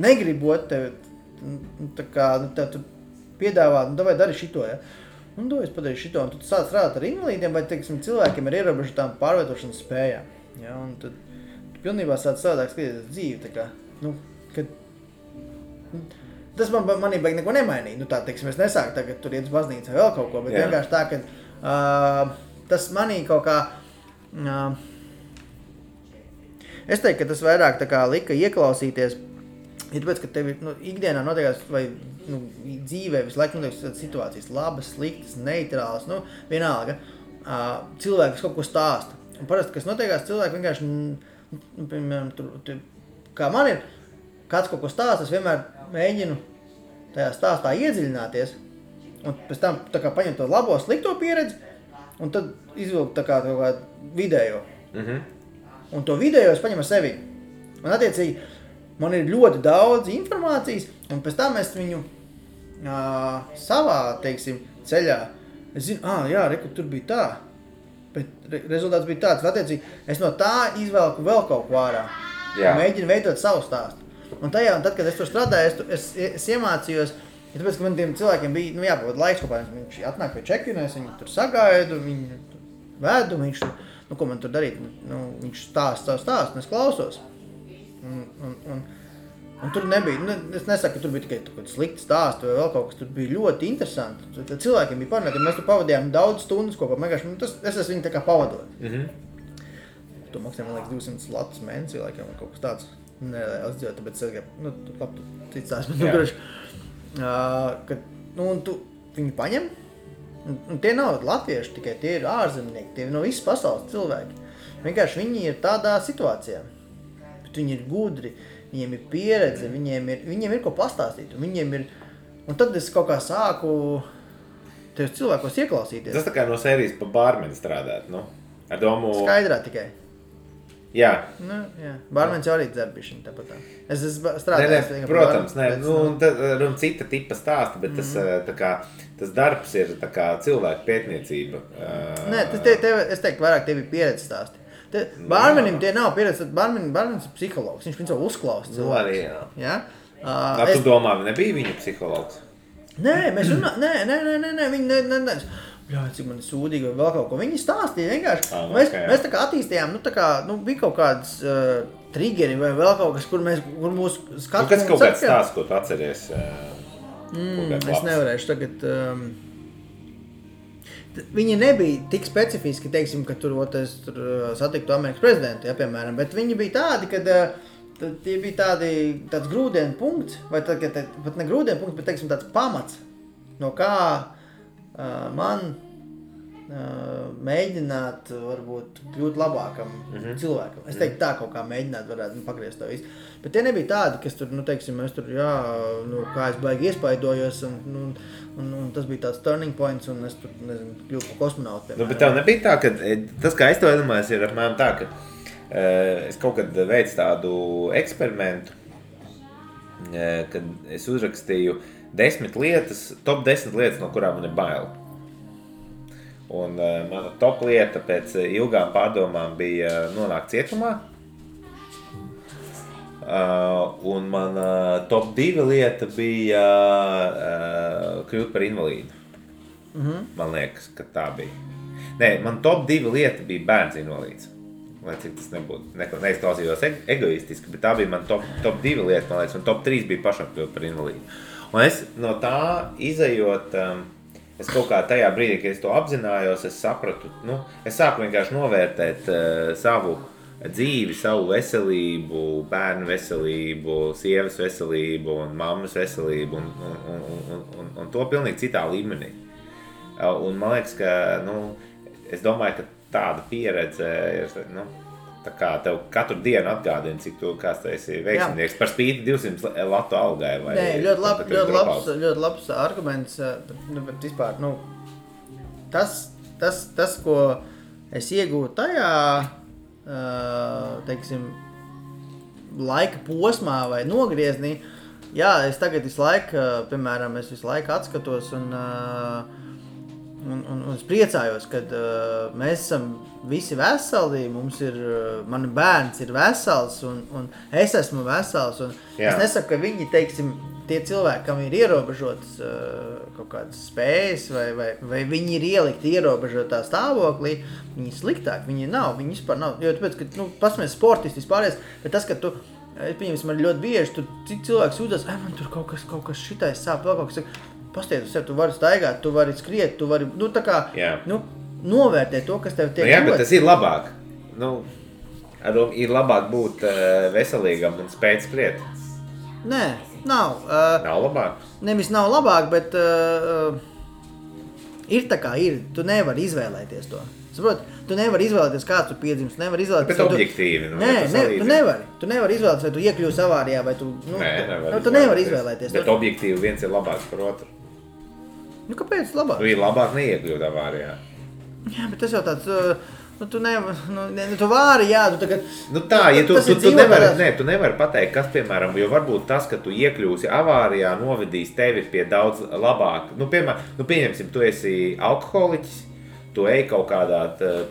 negribot tevi, tā kā, tev tur piedāvā, vai dari šito, es padarīju šito, un tu sāc strādāt ar invalīdiem, vai, teiksim, cilvēkiem ir ierobežotām pārvietošanas spējām, un tad tu pilnībā sāc savādāk skatīties dzīvi, tā kā, kad, tas manī baigi neko nemainīja, tā, teiksim, es nesāku tagad tur iet uz baznīcu vai vēl kaut ko, bet vienkārši tā, ka tas manī kaut kā, es teiktu, ka tas vairāk tā kā lika ieklausīties Ja tāpēc, ka tev ikdienā notiekās, vai dzīvē visu laiku notiek situācijas labas, sliktas, neitrālas, vienalga, cilvēki, kas kaut ko stāsta. Un parasti, kas notiekās, cilvēki vienkārši, piemēram, kā man ir, kāds kaut ko stāsta, es vienmēr mēģinu tajā stāstā iedziļināties, un pēc tam tā kā paņem to labo, slikto pieredzi, un tad izvilkt tā kā vidējo. Un to vidējo es paņemu ar sevi. Un attiecīgi, man ir ļoti daudz informācijas, un pēc tam es viņu savā, teiksim, ceļā, es zinu, jā, reku, tur bija tā, bet rezultāts bija tāds, un attiecīgi, es no tā izvelku vēl kaut ko ārā, mēģinu veidot savu stāstu. Un tad, kad es tur strādāju, es iemācījos, tāpēc, ka man tiem cilvēkiem bija, jāpavada laiks kopā, viņš atnāk pie check-in, es viņu tur sagaidu, viņu vedu, viņš, ko man tur darīt, viņš stāsta, un es klausos. Un tur nebija, es nesaku, ka tur bija tikai kaut slikti stāsti vai vēl kaut kas, tur bija ļoti interesanti. Cilvēkiem bija parunāti, mēs tur pavadījām daudz stundas kopā, es esmu viņu tā kā pavadot. To maksāja, man liekas, 200 latus mēnesī, laikam, kaut kas tāds. Nereāls dzīvot, tāpēc es gribu, labi, tu cits tās, bet un tu viņu paņem, un tie nav latvieši tikai, tie ir ārzemnieki, tie ir no visas pasaules cilvēki. Vienkārši viņi ir tādā situācijā, bet viņi ir gudri, viņiem ir pieredze, viņiem ir ko pastāstīt, un tad es kaut kā sāku tajos cilvēkos ieklausīties. Tas tā kā no sērijas pa bārmeni strādāt, ar domu... Skaidrā tikai. Jā. Jā. Bārmenis jau arī dzerbišķiņ tāpat tā. Es strādāju. Protams, un cita tipa stāsta, bet tas darbs ir tā kā cilvēku pētniecība. Nē, es teiktu, vairāk tev ir pieredze stāsti. Bārmenim tie nav pieredze, bārmenis ir psihologs, viņš principā uzklausa cilvēku. Arī, jā. Tu domā, nebija viņa psihologs? Nē, mēs viņi jā, cik man ir sūdīgi vai vēl kaut ko. Viņi stāstīja vienkārši. Mēs tā kā attīstījām, bija kaut kādas triggeri vai vēl kaut kas, kur mūsu skatu... Kas kaut kāds stāsts, ko tu atceries? Es nevarēšu tagad... Viņi nebija tik specifiski, teiksim, ka tur satiktu Amerikas prezidentu, piemēram, bet viņi bija tādi, kad tie bija tāds grūdienu punkts, vai pat ne grūdienu punkts, bet, teiksim, tāds pamats, no kā man mēģināt, varbūt, kļūt labākam cilvēkam. Es teiktu tā kaut kā mēģināt varētu pagriezt to visu. Bet tie nebija tādi, kas tur, teiksim, es tur, kā es baigi iespaidojos, un tas bija tāds turning points, un es tur, nezinu, kļūtu par kosmonautu. Bet tev nebija tā, ka tas, kā es to iedomājos, ir apmēram tā, ka es kaut kad veicu tādu eksperimentu, kad es uzrakstīju 10 lietas, top 10 lietas, no kurām man ir bail. Un mana top lieta pēc ilgām pārdomām bija nonākt cietumā. Un mana top 2 lieta bija kļūt par invalīdu. Man liekas, ka tā bija. Nē, man top 2 lieta bija bērns invalīds. Lai cik tas nebūtu, neizklausījos egoistiski, bet tā bija man top 2 lieta, man liekas, un top 3 bija pašam kļūt par invalīdu. Un es no tā izejot, es kaut kā tajā brīdī, kad es to apzinājos, es sapratu, es sāku vienkārši novērtēt savu dzīvi, savu veselību, bērnu veselību, sievas veselību un mammas veselību un to pilnīgi citā līmenī. Un man liekas, ka, es domāju, ka tāda pieredze ir, tā kā tev katru dienu atgādina, cik tu kāds tu esi veiksminieks par spīti 200 latu algai. Vai nē, ļoti labs arguments, bet vispār, tas, ko es iegūtu tajā, teiksim, laika posmā vai nogrieznī, jā, es tagad visu laiku, piemēram, es visu laiku atskatos un es priecājos, kad mēs esam visi veseli, man bērns ir vesels un es esmu vesels. Un es nesaku, ka viņi, teiksim, tie cilvēki, kam ir ierobežotas kaut kādas spējas vai viņi ir ielikti ierobežotā stāvoklī, viņi ir sliktāki, viņi vispār nav. Jo tāpēc, ka, pasmies sportisti vispārējais, bet tas, ka tu, pieņemsim, man ļoti bieži, tur citi cilvēki sūdzas, man tur kaut kas šitais sāp, vēl kaut kas, pastiet uz sevi, tu vari staigāt, tu vari skriet, tu vari, tā kā, novērtēt to, kas tev tiek bet tas ir labāk. Ir labāk būt veselīgam un spēt skriet. Nē, nav. Nav labāk? Nevis nav labāk, bet ir tā kā ir. Tu nevari izvēlēties to. Saprot, tu nevari izvēlēties, kāds tu piedzimst, tu nevari izvēlēties. Bet objektīvi, tu nevari izvēlēties, vai tu iekļūsi avārijā, vai tu, tu nevari izvēlēties. Bet objektīvi viens ir labāks par otru. Nu, kāpēc labāk? Tu ir labāk neiekļūt avārijā. Jā, bet tas jau tāds, tu nevari, tu vari, jā, tu tagad... Nu tā, ja tu nevari pateikt, kas, piemēram, jo varbūt tas, ka tu iekļūsi avārijā, novedīs tevi pie daudz labāk. Nu, piemēram, pieņemsim, tu esi alkoholiķis, tu ej pa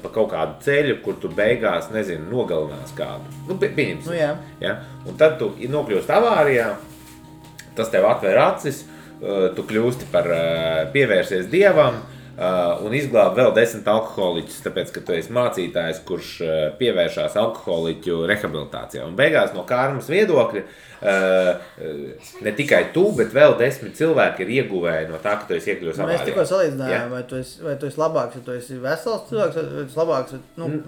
kaut kādu ceļu, kur tu beigās, nezinu, nogalinās kādu. Nu, pieņemsim. Nu, jā. Ja? Un tad tu nokļūst avārijā, tas tev atver acis, tu kļūsti par pievērsies Dievam un izglāb vēl 10 alkoholiķus, tāpēc, ka tu esi mācītājs, kurš pievēršās alkoholiķu rehabilitācijā. Un beigās no karmas viedokļa ne tikai tu, bet vēl 10 cilvēki ir ieguvēji no tā, ka tu esi iekļūs avārijā. Mēs tikko salīdzinājām, vai tu esi labāks, ja tu esi vesels cilvēks, vai tu esi labāks?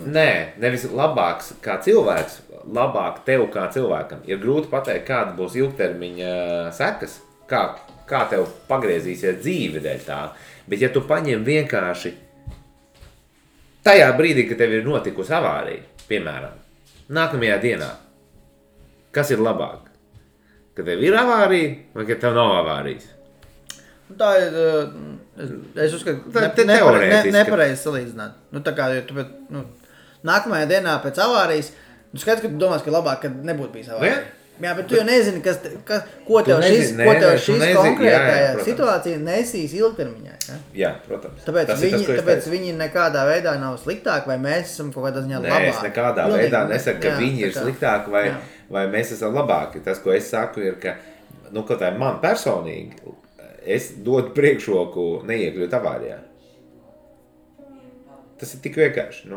Nē, nevis labāks kā cilvēks, labāk tev kā cilvēkam. Ir grūti pateikt, kāda būs ilgtermiņa sekas, kā tev pagriezīsies dzīve dēļ tā. Bet ja tu paņem vienkārši tajā brīdī, kad tev ir notikusi avārija, piemēram, nākamajā dienā, kas ir labāk? Kad tev ir avārija vai kad tev nav avārijas? Tā ir, es uzskatu, nepareizi salīdzināt. Nu, tā kā, nākamajā dienā pēc avārijas, tu skaidrs, ka tu domās, ka labāk, kad nebūtu bijis avārija. Jā, bet tu jau nezini, ko tev šis konkrētajā situācija nesīs ilgtermiņā. Jā, protams. Tāpēc viņi nekādā veidā nav sliktāki, vai mēs esam kaut kādā ziņā labāki. Nē, es nekādā veidā nesaku, ka viņi ir sliktāki, vai mēs esam labāki. Tas, ko es saku, ir, ka, kaut kā man personīgi, es dodu priekšroku neiekļūt avārijā. Tas ir tik vienkārši,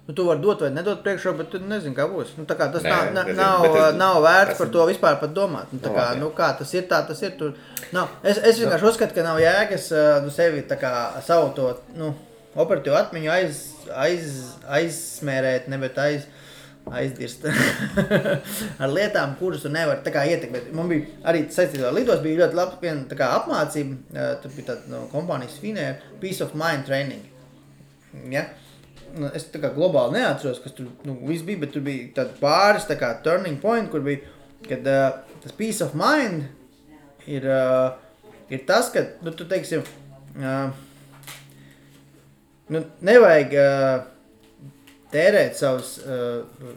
Tu vari dot vai nedot priekšroku, bet tu nezini, kā būs. Tā kā tas nav vērts par to vispār pat domāt. Kā tas ir, tā tas ir. Es vienkārši uzskatu, ka nav jēgas sevi savu to operatīvu atmiņu aizsmērēt, bet aizdirst ar lietām, kuras tu nevari ietekmēt. Man bija arī saistībā ar lidos, bija ļoti laba viena apmācība, tur bija tāda kompānijas Finnair, Peace of Mind training. Ja? Es globāli neatceros, kas tur viss bija, bet tur bija tādi pāris turning point, kur bija, kad tas peace of mind ir tas, ka, tu teiksim, nevajag tērēt savus,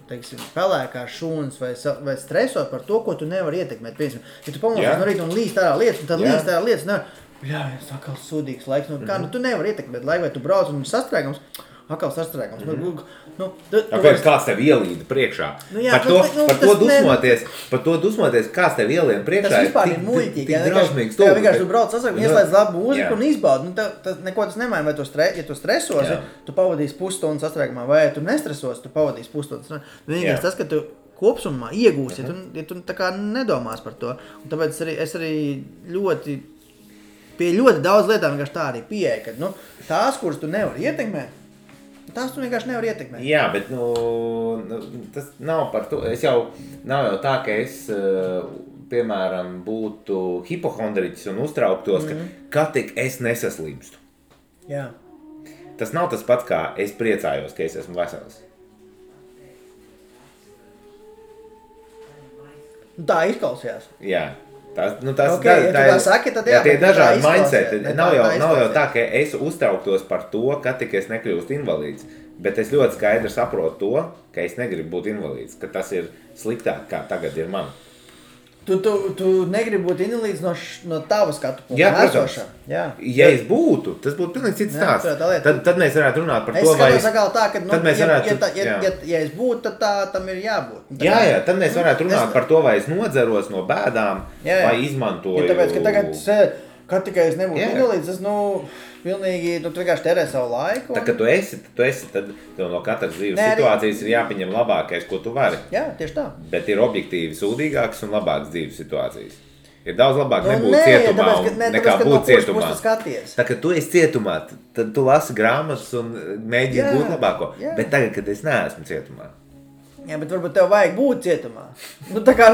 teiksim, pelēkās šūnas vai stresot par to, ko tu nevari ietekmēt. Piemēram, ja tu pamosies no rīta un līst ārā lietas, un tad līst ārā lietas, es atkal sūdīgs laiks, tu nevari ietekmēt laiku, vai tu brauc un ir sastrēgums, atkal sastrēgums. Kāds tev ielīda priekšā? Par to dusmoties, kāds tev ielīda priekšā. Tas vispār ir muļķīgi. Vienkārši tu brauc sastrēgums, ieslēdz labu mūziku un izbaudi. Neko tas nemaina, vai ja tu stresosi, tu pavadīsi pusstundu sastrēgumā, vai ja tu nestresosi, tu pavadīsi pusstundu. Vienīgais tas, ka tu kopsumā iegūsi, ja tu tā kā nedomās par to. Un tāpēc es arī pie ļoti daudz lietām vienkārši tā arī pieeja, ka tās, kuras tu nevari ietekmēt, tās tu vienkārši nevar ietekmēt. Jā, bet tas nav par to. Nav jau tā, ka es, piemēram, būtu hipohondriķis un uztrauktos, ka tik es nesaslimstu. Jā. Tas nav tas pats, kā es priecājos, ka es esmu vesels. Tā izklausījās. Jā. Ja tu tā saki, tad jā, tie dažādi mindseti. Nav jau tā, ka es uztrauktos par to, ka tik es nekļūstu invalīds, bet es ļoti skaidri saprotu to, ka es negribu būt invalīds, ka tas ir sliktāk, kā tagad ir man. Tu negribi būt invalīds no tava skatu punkta. Jā, protams. Ja es būtu, tas būtu pilnīgi cits stāsts. Tad mēs varētu runāt par to, vai... Es skatos tā, ka ja es būtu, tad tam ir jābūt. Jā, tad mēs varētu runāt par to, vai es nodzeros no bēdām, vai izmantoju... Tāpēc, ka tagad, kad tikai es nebūtu invalīds, tas, pilnīgi, tu vienkārši terē savu laiku. Tā, kad tu esi, tad tev no katras dzīves situācijas ir jāpieņem labākais, ko tu vari. Jā, tieši tā. Bet ir objektīvi sūdīgākas un labākas dzīves situācijas. Ir daudz labāk nebūt cietumā nekā būt cietumā. Tā, kad tu esi cietumā, tad tu lasi grāmatas un mēģini būt labāko. Jā. Bet tagad, kad es neesmu cietumā, Jā, bet varbūt tev vajag būt cietumā. Tā kā,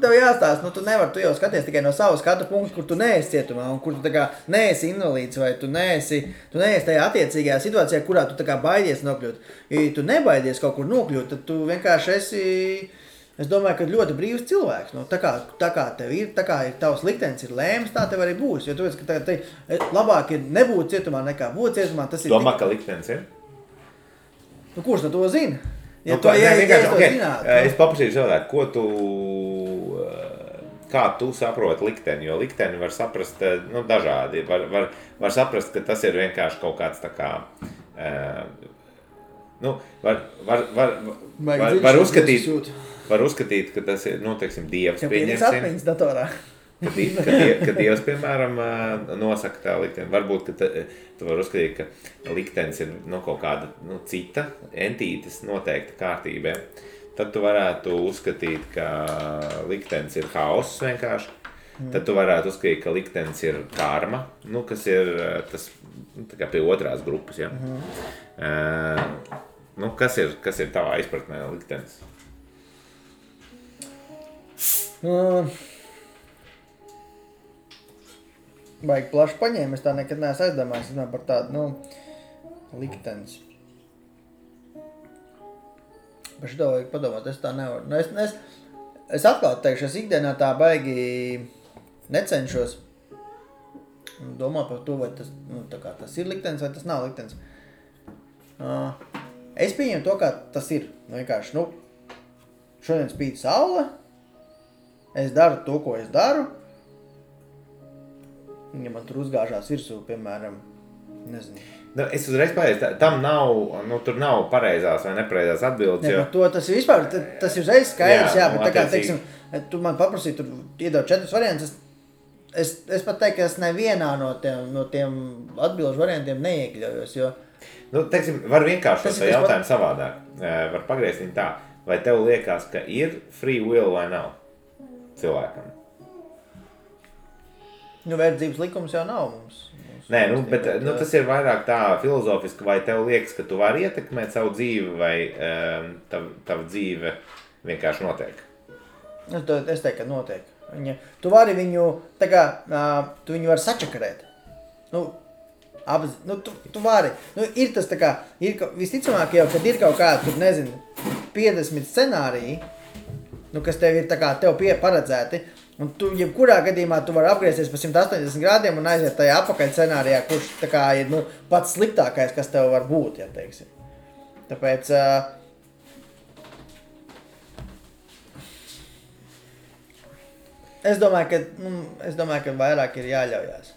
tev jāstāst, tu nevari, tu jau skaties tikai no savu skatu punktu, kur tu neesi cietumā, un kur tu tā kā neesi invalīds, vai tu neesi tajā attiecīgajā situācijā, kurā tu tā kā baidies nokļūt. Ja tu nebaidies kaut kur nokļūt, tad tu vienkārši esi, es domāju, ka ļoti brīvs cilvēks. Tā kā tev ir, tā kā tavs liktenis ir lēms, tā tev arī būs. Jo tu esi, ka labāk ir nebūt cietumā nekā būt cietumā. Tas ir domā, ka liktenis ir? Kurš to zina? Ja es paprasīju savādāk, kā tu saproti likteni, jo likteni var saprast dažādi. Var saprast, ka tas ir vienkārši kaut kāds tā kā, var uzskatīt, ka tas ir, teiksim, Dievs pieņemsim. Kad Dievs, piemēram, nosaka tā likteni, varbūt, ka tu vari uzskatīt, ka liktenis ir kaut kāda cita entītes noteikta kārtībā. Tad tu varētu uzskatīt, ka liktenis ir haoss vienkārši. Tad tu varētu uzskatīt, ka liktenis ir karma, kas ir tas tā kā pie otrās grupas. Ja? Kas ir tavā izpratnē liktenis? Baigi plaši paņēma, es tā nekad neesmu aizdomājis, par tādu, liktenis. Par šito vajag padomāt, es tā nevaru. Es atklāt teikšu, es ikdienā tā baigi necenšos domāt par to, vai tas, tas ir liktenis vai tas nav liktenis. Es pieņemu to, kā tas ir. Vienkārši, šodien spīd saule, es daru to, ko es daru. Ja man tur uzgāžās virsū, piemēram, nezinu. Es uzreiz pateicu, tam nav, tur nav pareizās vai nepareizās atbildes. Ne, to tas ir vispār, tas ir uzreiz skaidrs, jā, bet tā kā, teiksim, tu man paprasīji, tur iedod 4 variantus, es pat teiktu, ka es nevienā no tiem atbilžu variantiem neiekļaujos, jo... Teiksim, var vienkārši šo jautājumu savādāk, var pagriezt viņu tā, vai tev liekas, ka ir free will vai nav cilvēkam? Verdzības likums jau nav mums. Nē, bet tas ir vairāk tā filozofiski, vai tev liekas, ka tu vari ietekmēt savu dzīvi, vai tava dzīve vienkārši notiek? Es teiktu, ka notiek. Tu vari viņu, tā kā, tu viņu vari sačakarēt. Tu vari. Ir tas tā kā, visticamāk jau, kad ir kaut kāda, tur nezinu, 50 scenāriji, kas tev ir tā kā, tev paredzēti, un tu, jebkurā gadījumā, tu vari apgriezties pa 180 grādiem un aiziet tajā apakaļ scenārijā, kurš tā kā ir, pats sliktākais, kas tev var būt, ja teiksim. Tāpēc, es domāju, ka vairāk ir jāļaujās.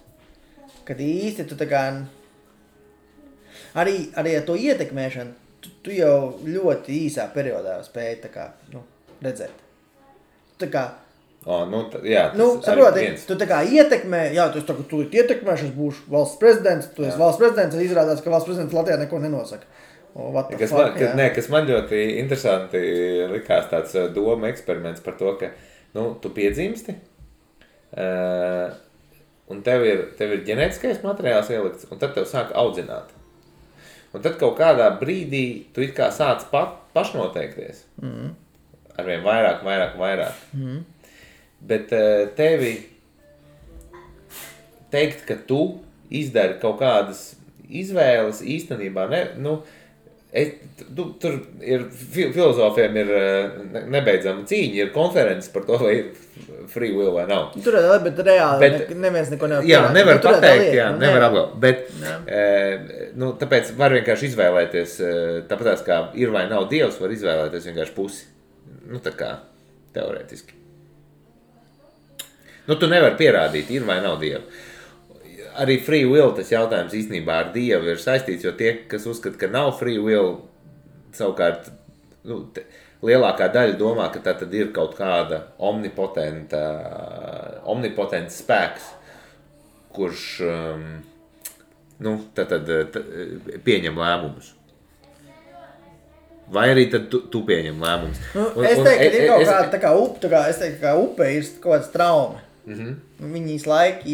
Kad īsti tu tā kā, arī ar to ietekmēšanu, tu jau ļoti īsā periodā spēji tā kā, redzēt. Tā kā, saproti, tu tā kā ietekmē, tu ietekmēši, es būšu valsts prezidents, tu esi valsts prezidents, un izrādās, ka valsts prezidents Latvijā neko nenosaka. Kas man ļoti interesanti likās tāds doma eksperiments par to, ka, tu piedzimsti, un tev ir ģenētiskais materiāls ielikts, un tad tev sāk audzināt. Un tad kaut kādā brīdī tu it kā sāc pašnoteikties. Arvien vairāk. Bet tevi teikt, ka tu izdari kaut kādas izvēles īstenībā, tur ir, filozofiem ir nebeidzama cīņa, ir konferences par to, vai ir free will vai nav. Tur ir, bet reāli neviens neko nevar pierādīt. Jā, nevar pateikt, nevar apgalvot, bet tāpēc var vienkārši izvēlēties, tāpēc kā ir vai nav Dievs, var izvēlēties vienkārši pusi. Tā kā teorētiski. Tu nevari pierādīt, ir vai nav Dieva. Arī free will tas jautājums īstenībā ar Dievu ir saistīts, jo tie, kas uzskata, ka nav free will, savukārt lielākā daļa domā, ka tā tad ir kaut kāda omnipotents spēks, kurš pieņem lēmumus. Vai arī tad tu pieņem lēmumus? Es teiktu, ka ir kaut kāda kā upe ir kaut kāds trauma. Viņi visu laiku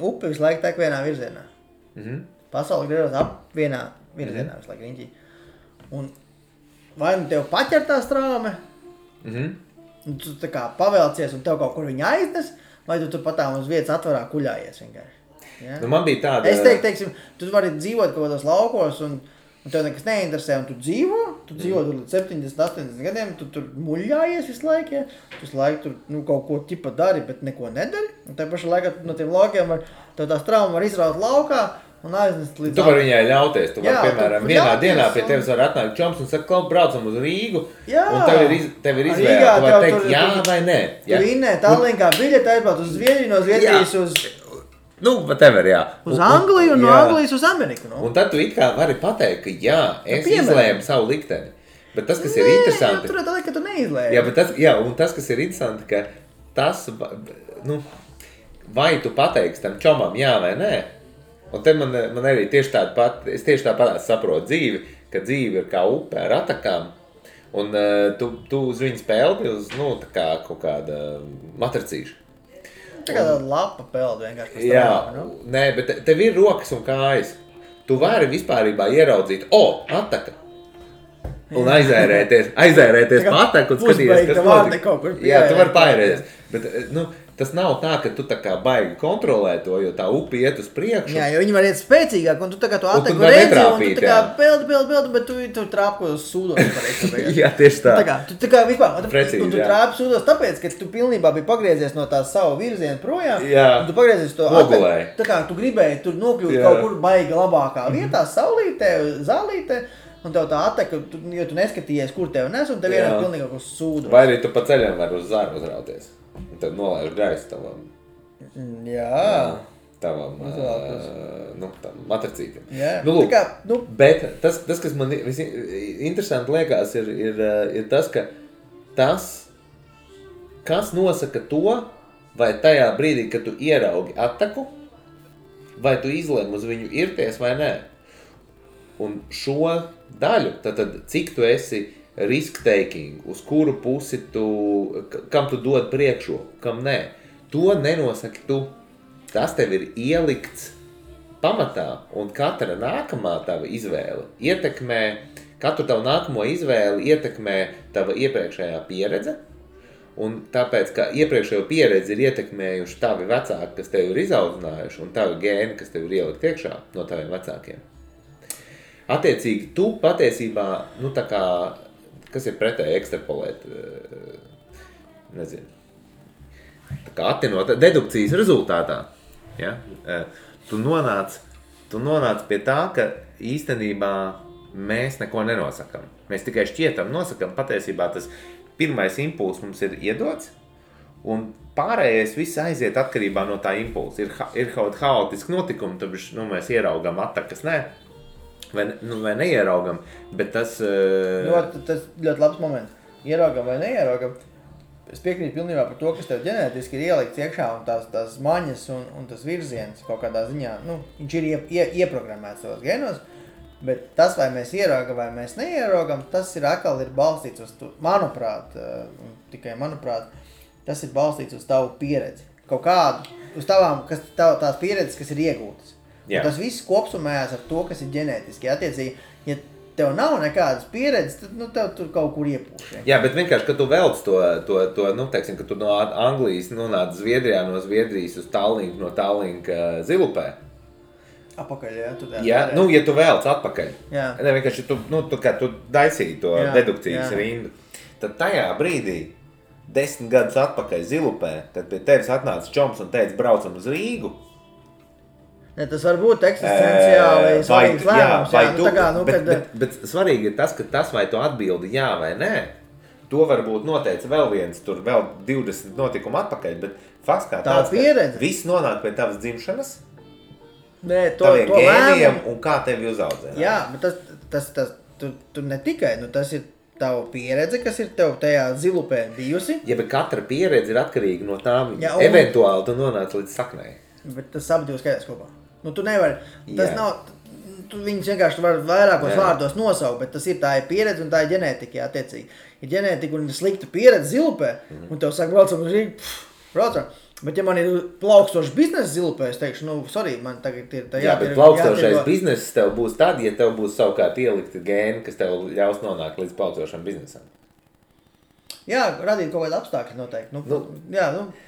upe visu laiku tek vienā virzienā. Pasauli griežas ap vienā virzienā visu laiku riņķī. Un vai nu tev paķertā straume, un tu tā kā pavelcies un tev kaut kur viņa aiznes, vai tu patām uz vietas atvarā kuļājies vienkārši. Ja? Nu, man bija tāda... Es teiksim, tu vari dzīvot kaut kādos laukos un tev nekas neinteresē, un tu dzīvo tur līdz 70, 80 gadiem, tu tur muļājies visu laiku, ja? Tu visu laiku tur kaut ko ķipa dari, bet neko nedari, un tajā pašā laikā no tiem laukiem tev tās traumas var izraut laukā, un aiznest līdz... Tu vari viņai ļauties, tu vari, piemēram, vienā dienā pie tevis var atnākt čoms un saka, kaut braucam uz Rīgu, un tev ir izvēle, tu vari teikt jā vai nē. Tu vinnē Tallinkā biļeti aizbraukt uz Zviedriju, no Zviedrijas uz... Nu, whatever, jā. Uz Angliju un no Anglijas uz Ameriku, no? Un tad tu it kā vari pateikt, ka jā, es izlēmu savu likteni. Bet tas, kas ir interesanti... Tur tā, ka tu neizlēmi. Jā, un tas, kas ir interesanti, ka tas, nu, vai tu pateiksi tam čomam jā vai nē, un te man arī tieši tāpat saprotu dzīvi, ka dzīve ir kā upe ar atakām, un tu uz viņu spēldi uz, nu, tā kā kaut kāda matricīša. Tā kā tāda lapa peld vienkārši. Jā, nē, bet tev ir rokas un kājas. Tu vari vispārībā ieraudzīt, ataka. Un aizērēties pa ataku un skatīties, kas notika. Jā, tu vari paērēties. Bet, nu, tas nav tā, ka tu tā kā baigi kontrolē to, jo tā upi iet uz priekšu. Jā, jo viņi var iet spēcīgāk, un tu tā kā tu ataku redzi, un tu tā kā peldi, bet tu trāpi uz sūdos. Jā, tieši tā. Tu kā vispār, un tu trāpi sūdos tāpēc, ka tu pilnībā biji pagriezies no tās savu virzienu projām, un tu pagriezies to ataku. Tā kā tu gribēji tur nokļūt kaut kur baigi labākā vietā, saulītē, zālītē, un tev tā ataka, jo tu neskatījies, kur tev nes, un tev vienā pilnīgi uz sūdos. Vai arī tu pa ceļam var uz zāru uzrauties. Un tad nolaiž gaisu tavam. Jā. Tavam, matricītam. Jā. Nu, lūk, bet tas, kas man interesanti liekas, ir tas, ka kas nosaka to, vai tajā brīdī, kad tu ieraugi ataku, vai tu izlēmi uz viņu irties vai nē. Un šo daļu, tad cik tu esi risk-taking, uz kuru pusi kam tu dod priekšroku, kam nē. To nenosaki tu. Tas tev ir ielikts pamatā, un katra nākamā tava izvēle ietekmē, katru tavu nākamo izvēli ietekmē tava iepriekšējā pieredze, un tāpēc, ka iepriekšējo pieredzi ir ietekmējuši tavi vecāki, kas tev ir izaudzinājuši, un tavi gēni, kas tev ir ielikt iekšā no taviem vecākiem. Attiecīgi, tu patiesībā, nu tā kā, kas ir pretēji ekstrapolēt, nezinu, tā kā attinot dedukcijas rezultātā, ja? Tu nonāc pie tā, ka īstenībā mēs neko nenosakam. Mēs tikai šķietam nosakam, patiesībā tas pirmais impulss mums ir iedots, un pārējais viss aiziet atkarībā no tā impulsa. Ir kaut haotiski notikumi, tad mēs ieraugam atakas, ne? Vai neieraugam, bet tas... Tas ļoti labs moments. Ieraugam vai neieraugam. Es piekrītu pilnībā par to, kas tev ģenētiski ir ielikts iekšā, un tās maņas un tas virziens kaut kādā ziņā, viņš ir ieprogrammēts savos genos, bet tas, vai mēs ieraugam vai mēs neieraugam, tas ir atkal balstīts uz, manuprāt, tikai manuprāt, tas ir balstīts uz tavu pieredzi. Kaut kādu, uz tās pieredzes, kas ir iegūtas. Tas viss kopsumējās ar to, kas ir ģenētiski. Attiecīgi, ja tev nav nekādas pieredzes, tad tev tur kaut kur iepūš. Jā, bet vienkārši, kad tu velc to teiksim, ka tu no Anglijas nonāc Zviedrijā, no Zviedrijas uz Tallinku, no Tallinka Zilupē. Apakaļ, jā. Jā, ja tu velc atpakaļ. Jā. Ne, vienkārši tu daisīji to dedukcijas rindu. Tad tajā brīdī, 10 gadus atpakaļ Zilupē, kad pie tevis atnāca čoms un teica, braucam uz Rīgu. Ne, tas var būt eksistenciāli svarīgs lēmums. Bet svarīgi ir tas, ka tas, vai tu atbildi jā vai nē, to varbūt noteica vēl 20 notikumu atpakaļ, bet fakts kā tāds, ka viss nonāk pie tavas dzimšanas, taviem gēniem un kā tevi uzaudzē. Jā, bet tu ne tikai, tas ir tava pieredze, kas ir tev tajā Zilupē bijusi. Ja, bet katra pieredze ir atkarīga no tām, eventuāli tu nonāc līdz saknei. Bet tas abi divi skaitās kopā. Tu nevari, tas nav, tu viņus vienkārši var vairākos vārdos nosaukt, bet tas ir tā ir pieredze un tā ir ģenētika, attiecīgi. Ir ģenētika un ir slikta pieredze Zilupē, un tev saka, braucam uz Rīgu, braucam. Bet, ja man ir plaukstošs biznesa zilupē, es teikšu, sorry, man tagad ir tā bet plaukstošais bizness tev būs tad, ja tev būs savukārt ielikti gēni, kas tev ļaus nonākt līdz plaukstošam biznesam. Jā, radīt kaut kādu apstākļu noteikti.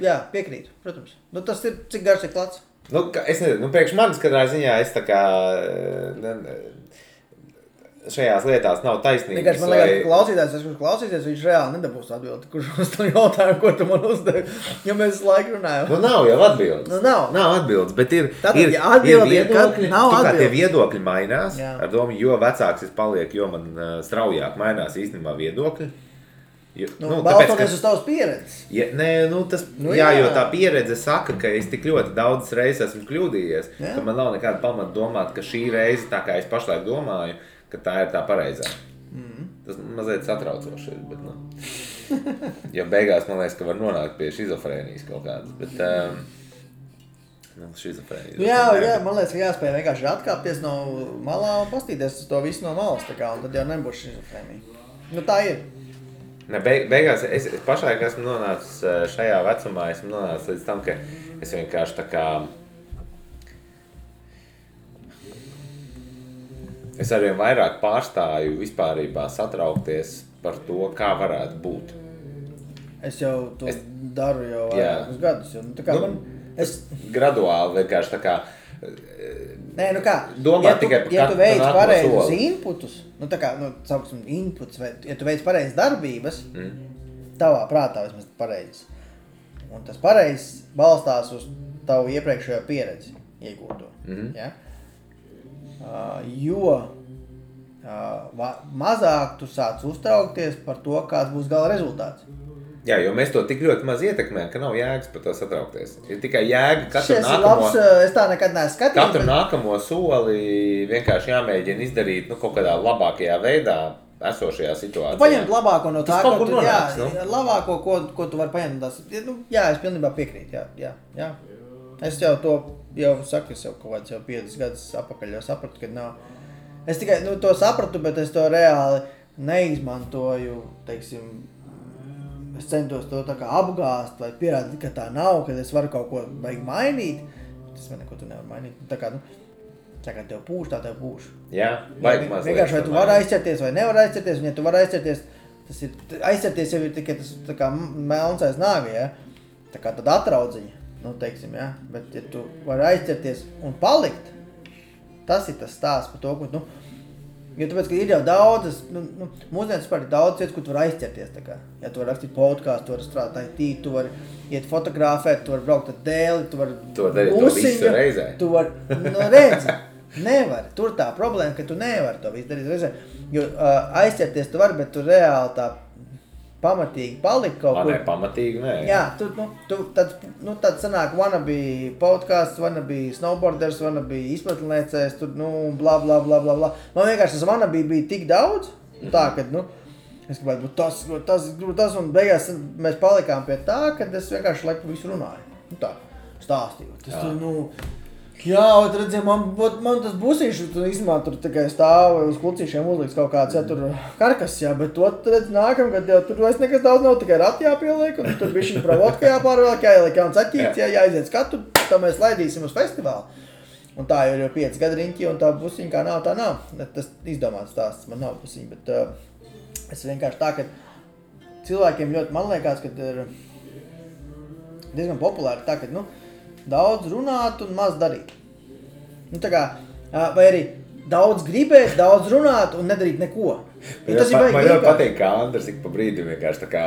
Jā, piekrītu, protams. Tas ir, cik garš ir klats? Es nezinu, priekš manis katrā ziņā es tā kā šajās lietās nav taisnības. Vienkārši man liekas, kurš klausīsies, viņš reāli nedabūs atbildi, kurš uz to jautājumu, ko tu man uzdevi, ja mēs laiku runājam. Nav jau atbildes. Nav atbildes, bet ir viedokļi. Kā tie viedokļi mainās, ar domu, jo vecāks es paliek, jo man straujāk mainās īstenībā viedokļi. Balstoties uz tavas pieredzes. Jo tā pieredze saka, ka es tik ļoti daudzas reizes esmu kļūdījies, ka man nav nekāda pamata domāt, ka šī reize, tā kā es pašlaik domāju, ka tā ir tā pareizā. Tas mazliet satraucoši ir, bet jo beigās man liekas, ka var nonākt pie šizofrēnijas kaut kādas, bet šizofrēnijas. Jā, man liekas, ka jāspēj vienkārši atkāpties no malā un pastīties uz to visu no malas, tā kā, un tad jau nebūs šizofrēnija. Tā ir. Beigās es pašlaik esmu nonācis šajā vecumā, esmu nonācis līdz tam, ka es vienkārši tā kā es arvien vairāk pārstāju vispārībā satraukties par to, kā varētu būt. Es jau to daru jau vairākus gadus. Graduāli vienkārši tā kā domā tikai par ja tu veic pareizus inputus, sauksim inputs, vai ja tu veic pareizas darbības, tavā prātā vismaz pareizes, un tas pareizs balstās uz tavu iepriekšējo pieredzi iegūto. Ja? Jo mazāk tu sāc uztraukties par to, kāds būs gala rezultāts. Jā, jo mēs to tik ļoti maz ietekmējam, ka nav jēgas par to satraukties. Ir tikai jēga es tā nekad neesmu skatījies. Katru nākamo soli vienkārši jāmēģina izdarīt kaut kādā labākajā veidā esošajā situācijā. Paņemt labāko no tā, labāko, ko tu vari paņemt. Es pilnībā piekrītu. Jā. Es jau to saku, es jau kaut kāds 5 gadus apakaļ jau sapratu, ka nav. Es tikai to sapratu, bet es to reāli neizmantoju, teiksim, es centos to tā kā apgāst vai pierādīt, ka tā nav, ka es varu kaut ko vajag mainīt. Tas man neko tu nevar mainīt. Tā kā tev pūš, tā tev pūš. Jā, vajag mazliet. Vienkārši vai tu vari aizķerties vai nevar aizķerties, un ja tu vari aizķerties, aizķerties jau ir tikai tas tā kā melns aiz nāga, ja? Tā kā tad atraudziņa, teiksim, ja? Bet ja tu vari aizķerties un palikt, tas ir tas stāsts par to, ko jo tāpēc, ka ir jau daudzas, mūsdienas par daudz vietas, kur tu vari aizķerties, tā kā. Ja tu vari rakstīt podcastu, tu vari strādāt IT, tu vari iet fotografēt, tu vari braukt ar dēli, tu vari darīt to visu reizē. Tu vari, redzi, nevari. Tur tā problēma, ka tu nevari to visu darīt reizē. Jo aizķerties tu vari, bet tu reāli tā pamatīgi palikt kaut kur. Pamatīgi, nē. Jā, tad sanāk wannabe podcasts, wannabe snowboarders, wannabe izpratnēcējs, bla, bla, bla, bla, bla. Man vienkārši tas wannabe bija tik daudz, tā, ka, es gribētu būt tas, un beigās mēs palikām pie tā, kad es vienkārši laiku visu runāju. Tā, stāstīju. Jā, redziet, man tas busīši, īstenībā tur tikai stāv uz klucīšiem uzliks kaut kāds, tur karkas, bet to, redz, nākamgad jau tur vairs nekas daudz nav, tikai rati jāpieliek, un tur bišķiņ provotka jāpārvēlk, jāieliek jauns aķīts, jāaiziet skatu, tā mēs laidīsim uz festivālu. Un tā jau ir 5 gadu riņķi, un tā busiņa kā nav, tā nav. Tas izdomāts stāsts, man nav busiņa, bet es vienkārši tā, ka cilvēkiem ļoti, man liekas, ka ir diezgan populāri tā, ka, daudz runāt un maz darīt. Tā kā, vai arī daudz gribēt, daudz runāt un nedarīt neko. Man ļoti patīk, kā Andrs ik pa brīdim vienkārši tā kā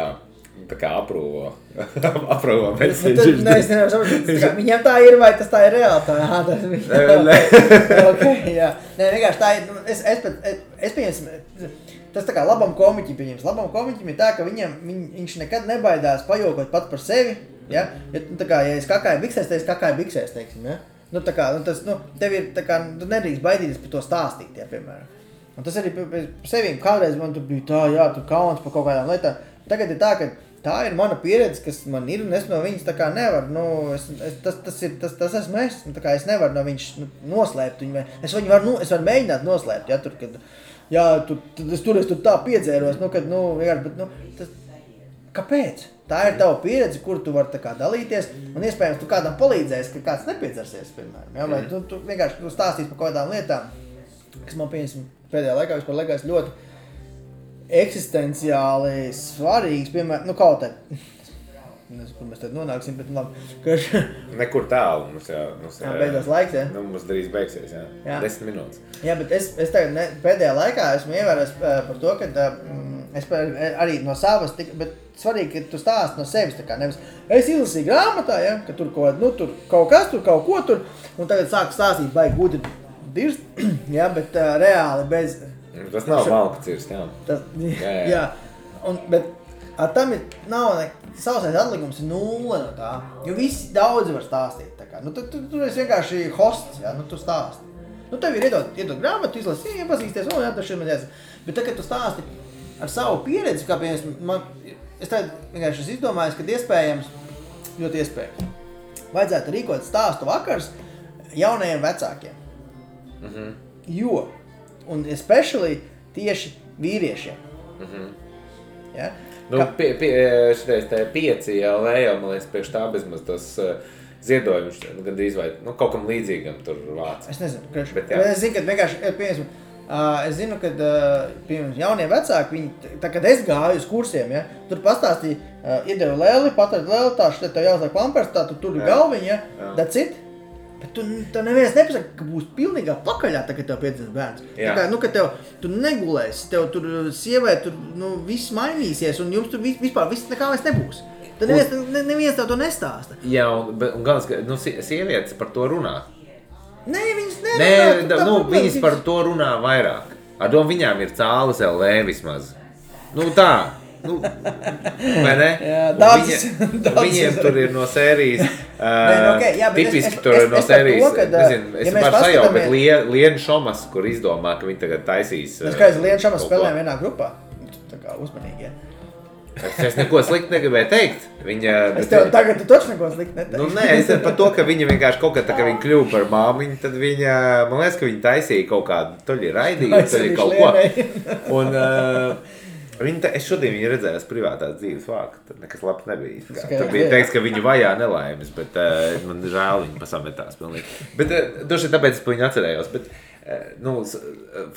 aprūvo message. Nē, es nevaru saprast, viņam tā ir, vai tas tā ir reāli? Nē, vienkārši tā ir, es pieņemsim, tas tā kā labam komiķim pieņems. Labam komiķim ir tā, ka viņš nekad nebaidās pajokot pat par sevi. Ja? Tā kā, ja es kakāju biksēs, tad es kakāju biksēs, teiksim, ja? Tev ir, tā kā, tu nedrīkst baidīties par to stāstīt, ja, piemēram. Un tas arī par sevīm, kādreiz man tur bija tā, jā, tu kauns par kaut kādām lietām. Tagad ir tā, ka tā ir mana pieredze, kas man ir, un es no viņas tā kā nevaru, tas esmu es, tā kā es nevaru no viņas noslēpt viņu, es varu mēģināt noslēpt, ja, tur, kad, jā, es tur tā piedzēros, vienkārši, bet, Kāpēc? Tā ir tava pieredze, kur tu vari dalīties, un iespējams tu kādam palīdzēsi, ka kāds nepiedzersies, piemēram. Ja? Vai tu vienkārši stāstīsi par kādām lietām, kas man pēdējā laikā vispār liekas ļoti eksistenciāli svarīgs, piemēram, kaut tā. Nezinu, kur mēs tad nonāksim, bet labi. Nekur tālu mums beidzās laiks, ja? Mums drīz beigsies, jā. 10 minūtes. Jā, bet es tagad pēdējā laikā esmu ievērojis par to, ka es arī no savas, bet svarīgi, ka tu stāsti no sevis, tā kā nevis es izlasīju grāmatā, ja, ka tur tur kaut kas, tur kaut ko tur, un tagad sāku stāstīt baigi gudri dirst, ja, bet reāli bez... Tas nav malka cirst, jā. Jā. Bet tam nav sausais atlikums ir 0 no tā, jo visi daudzi var stāstīt, tā kā. Tu esi vienkārši hosts, ja, tu stāsti. Tev ir iedot grāmatu, izlasi, iepazīsties, jā, tas ir mazliet. Bet tad, kad tu stāsti ar savu pieredzi, kā piemēram, es tagad vienkārši izdomājos, ka iespējams, ļoti iespējams, vajadzētu rīkot stāstu vakars jaunajiem vecākiem. Jo, un especially tieši vīriešiem. Ja? Šitais 5 LV jau, man liekas, priekš tā bezmaz tas ziedojums gandrīz vai kaut kam līdzīgam tur vāc. Es nezinu, bet es zinu, ka vienkārši, es zinu, ka jaunie vecāki, viņi, tā kad es gāju uz kursiem, ja, tur pastāstīja, iedevu lēli, patrad lēli, tā šeit tev jāuzliek pampers, tā tu tur galviņa, ja, that's it. Bet tu neviens nepasaka, ka būs pilnīgā pakaļā, tā, kad tev piedzimst bērns. Tā kā, ka tu negulēsi, tev tur sievē, tur, viss mainīsies, un jums tur vispār viss nekā vairs nebūs. Tad neviens tev to nestāsta. Jā, un galvenais, ka sievietes par to runā. Nē, viņas nerunā. Viņas par to runā vairāk. Ar domu viņām ir cāles LV vismaz. Tā. Vai ne? Viņiem tur ir no sērijas, tipiski tur ir no sērijas, nezinu, es varu sajaukt, bet Liena Šomas, kur izdomā, ka viņi tagad taisīs. Es kā Liena Šomas spēlējam vienā grupā, tā kā uzmanīgi, ja. Es neko slikti negribēju teikt. Es tev tagad tu taču neko slikti neteiktu. Nē, es par to, ka viņa vienkārši kaut kā tā, ka viņa kļuva par māmiņu, tad viņa, man liekas, ka viņa taisīja kaut kādu, toļi raidīju, toļi kaut ko. Un es šodien viņu redzēju privātās dzīves vāku, tad nekas labs nebija. Tad bija teiks, ka viņu vajā nelaimes, bet man žēl viņu pasametās pilnīgi. Bet doši tāpēc es pa viņu atcerējos. Bet,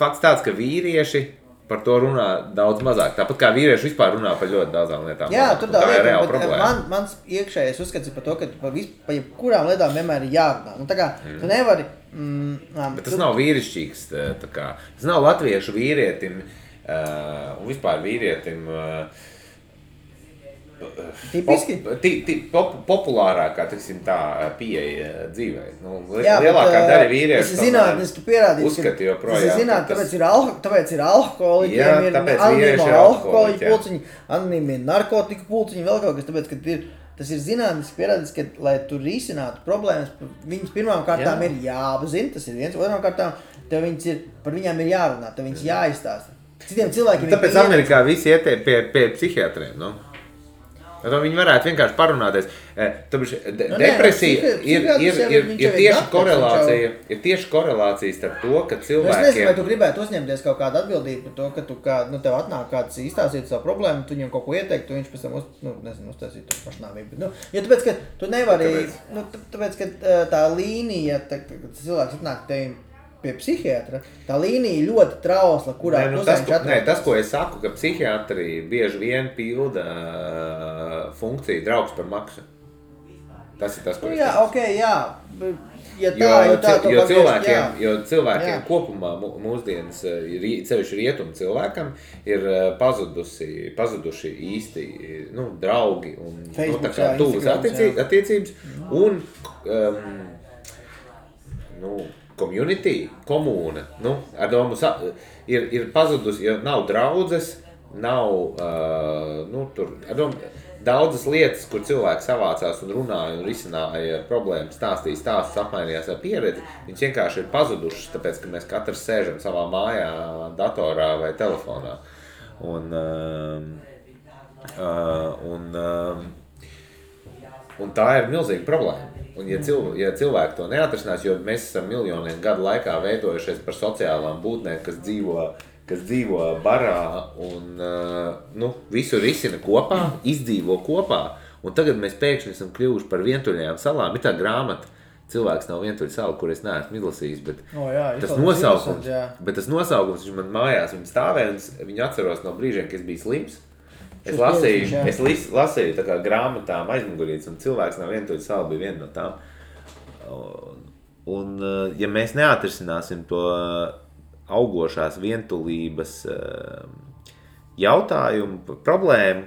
fakts tāds, ka vīrieši par to runā daudz mazāk. Tāpat kā vīrieši vispār runā par ļoti daudzām lietām. Jā, tur tā ir reāla problēma. Mans iekšējais uzskats ir par to, ka par jebkurām lietām vienmēr ir jārunā. Tā kā tu nevari... Bet tas nav vīrišķīgs. Tas nav latviešu vīrietim un vispār vīrietim populārākā, tiksim tā, pieeja dzīvē. Lielākā daļa vīriešu tas ir zinātniski pierādīts, uzskata joprojām. Tas ir zinātniski, tāpēc ir alkoholiķiem, ir anonīmi alkoholiķu pulciņi, anonīmi narkotiku pulciņi, vēl kaut kas, tāpēc, ka tas ir zinātniski pierādīts, ka, lai tu risinātu problēmas, viņas pirmām kārtām ir jāapzina, tas ir viens, otrām kārtām, par viņām ir jārunā, tev viņas jāizstāsta. Citiem cilvēkiem tāpēc Amerikā visi iet pie psihiatriem, Viņi varētu vienkārši parunāties. Depresija ir tieši korelācija starp to, ka cilvēkiem... Es nezinu, vai tu gribētu uzņemties kaut kādu atbildību par to, ka tu, tev atnāk kāds izstāstīt savu problēmu, tu viņam kaut ko ieteikt, tu viņš pēc tam uztaisīt to pašnāvību. Jo tāpēc, ka tu nevari... Tāpēc, ka tā līnija, cilvēks atnāk tevim pie psihiatra, tā līnija ļoti trausla, kurā tas, ko es saku, ka psihiatri bieži vien pilda funkciju draugs par maksu. Tas ir tas, ko es saku. Jo cilvēkiem kopumā mūsdienas, sevišķi rietumu cilvēkam, ir pazuduši īsti draugi un tuvas attiecības un community, komūna, ar domu ir pazudusi, jo nav draudzes, nav, tur, ar domu, daudzas lietas, kur cilvēki savācās un runāja un risināja problēmas, stāstīja stāstus, apmainījās ar pieredzi, viņas vienkārši ir pazudušas, tāpēc, ka mēs katrs sēžam savā mājā, datorā vai telefonā. Un tā ir milzīga problēma. Un ja cilvēki to neatrisinās, jo mēs esam miljoniem gadu laikā veidojušies par sociālām būtnēm, kas dzīvo kas dzīvo barā un visu risina kopā, izdzīvo kopā. Un tagad mēs pēkšņi esam kļuvuši par vientuļajām salām. Ir tā grāmata, cilvēks nav vientuļa sala, kur es neesmu izlasījis, bet tas nosaukums, viņš man mājās, viņa stāvēja, un viņu atceros no brīžiem, kad es biju slims. Es lasīju tā kā grāmatām aizmugurītes, un cilvēks nav vientuļa sala bija viena no tām. Un ja mēs neatrisināsim to augošās vientulības jautājumu, problēmu,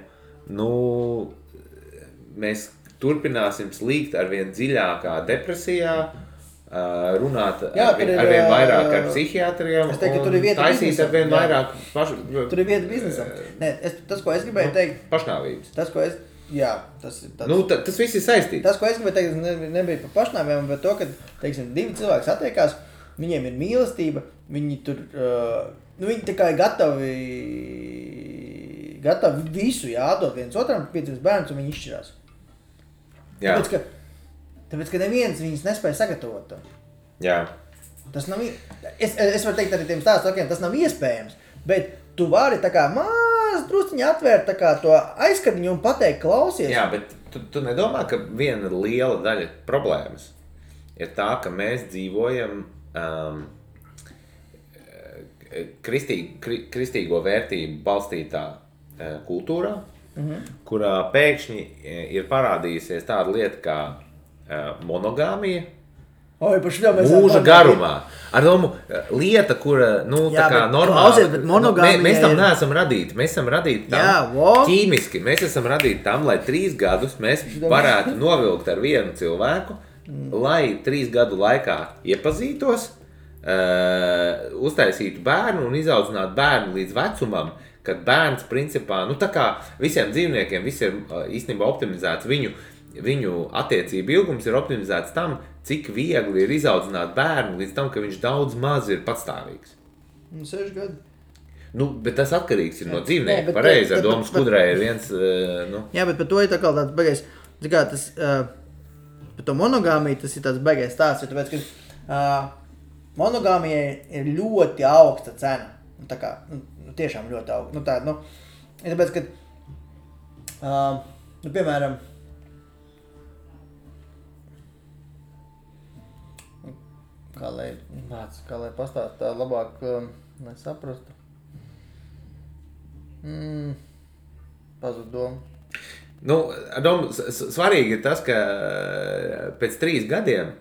mēs turpināsim slīgt arvien dziļākā depresijā, runāt arvien vairāk ar psihiatriem un taisīt arvien vairāk Tur ir vieta biznesam. Tas, ko es gribēju teikt... Pašnāvības. Tas viss ir saistīts. Tas, ko es gribēju teikt, nebija par pašnāvībām, bet to, ka, teiksim, divi cilvēki satiekās, viņiem ir mīlestība, viņi tur, viņi tā kā ir gatavi visu jādod viens otram, piecības bērns, un viņi izšķirās. Tāpēc, ka neviens viņus nespēja sagatavot. Jā. Tas nav, es varu teikt arī tiem stāstokiem, tas nav iespējams, bet tu vari tā kā drusciņi atvērt tā kā to aizskatiņu un pateikt, klausies. Jā, bet tu nedomā, ka viena liela daļa problēmas ir tā, ka mēs dzīvojam kristīgo vērtību balstītā kultūrā, kurā pēkšņi ir parādījusies tāda lieta kā monogāmija mūža garumā. Ar domu, lieta, kura, tā kā normāli, mēs tam neesam radīti. Mēs esam radīti tam ķīmiski. Mēs esam radīti tam, lai 3 gadus mēs varētu novilkt ar vienu cilvēku, lai 3 gadu laikā iepazītos, uztaisītu bērnu un izaudzinātu bērnu līdz vecumam, kad bērns principā, tā kā visiem dzīvniekiem, viss ir īstenībā optimizēts, viņu attiecību ilgums ir optimizēts tam, cik viegli ir izaudzināt bērnu līdz tam, ka viņš daudz maz ir patstāvīgs. 6 gadi. Bet tas atkarīgs ir no dzīvnieka. Pareizi, ar domu skudrē ir viens... Jā, bet par to ir tā kā tāds beigais, par to monogāmiju tas ir tāds beigais stāsts, jo tāpēc, ka monogāmijai ir ļoti augsta cena. Tā kā, tiešām ļoti augsta. Tāpēc, ka, piemēram, kā lai pastāst tā labāk, lai saprastu. Pazud domu. Svarīgi ir tas, ka pēc 3 gadiem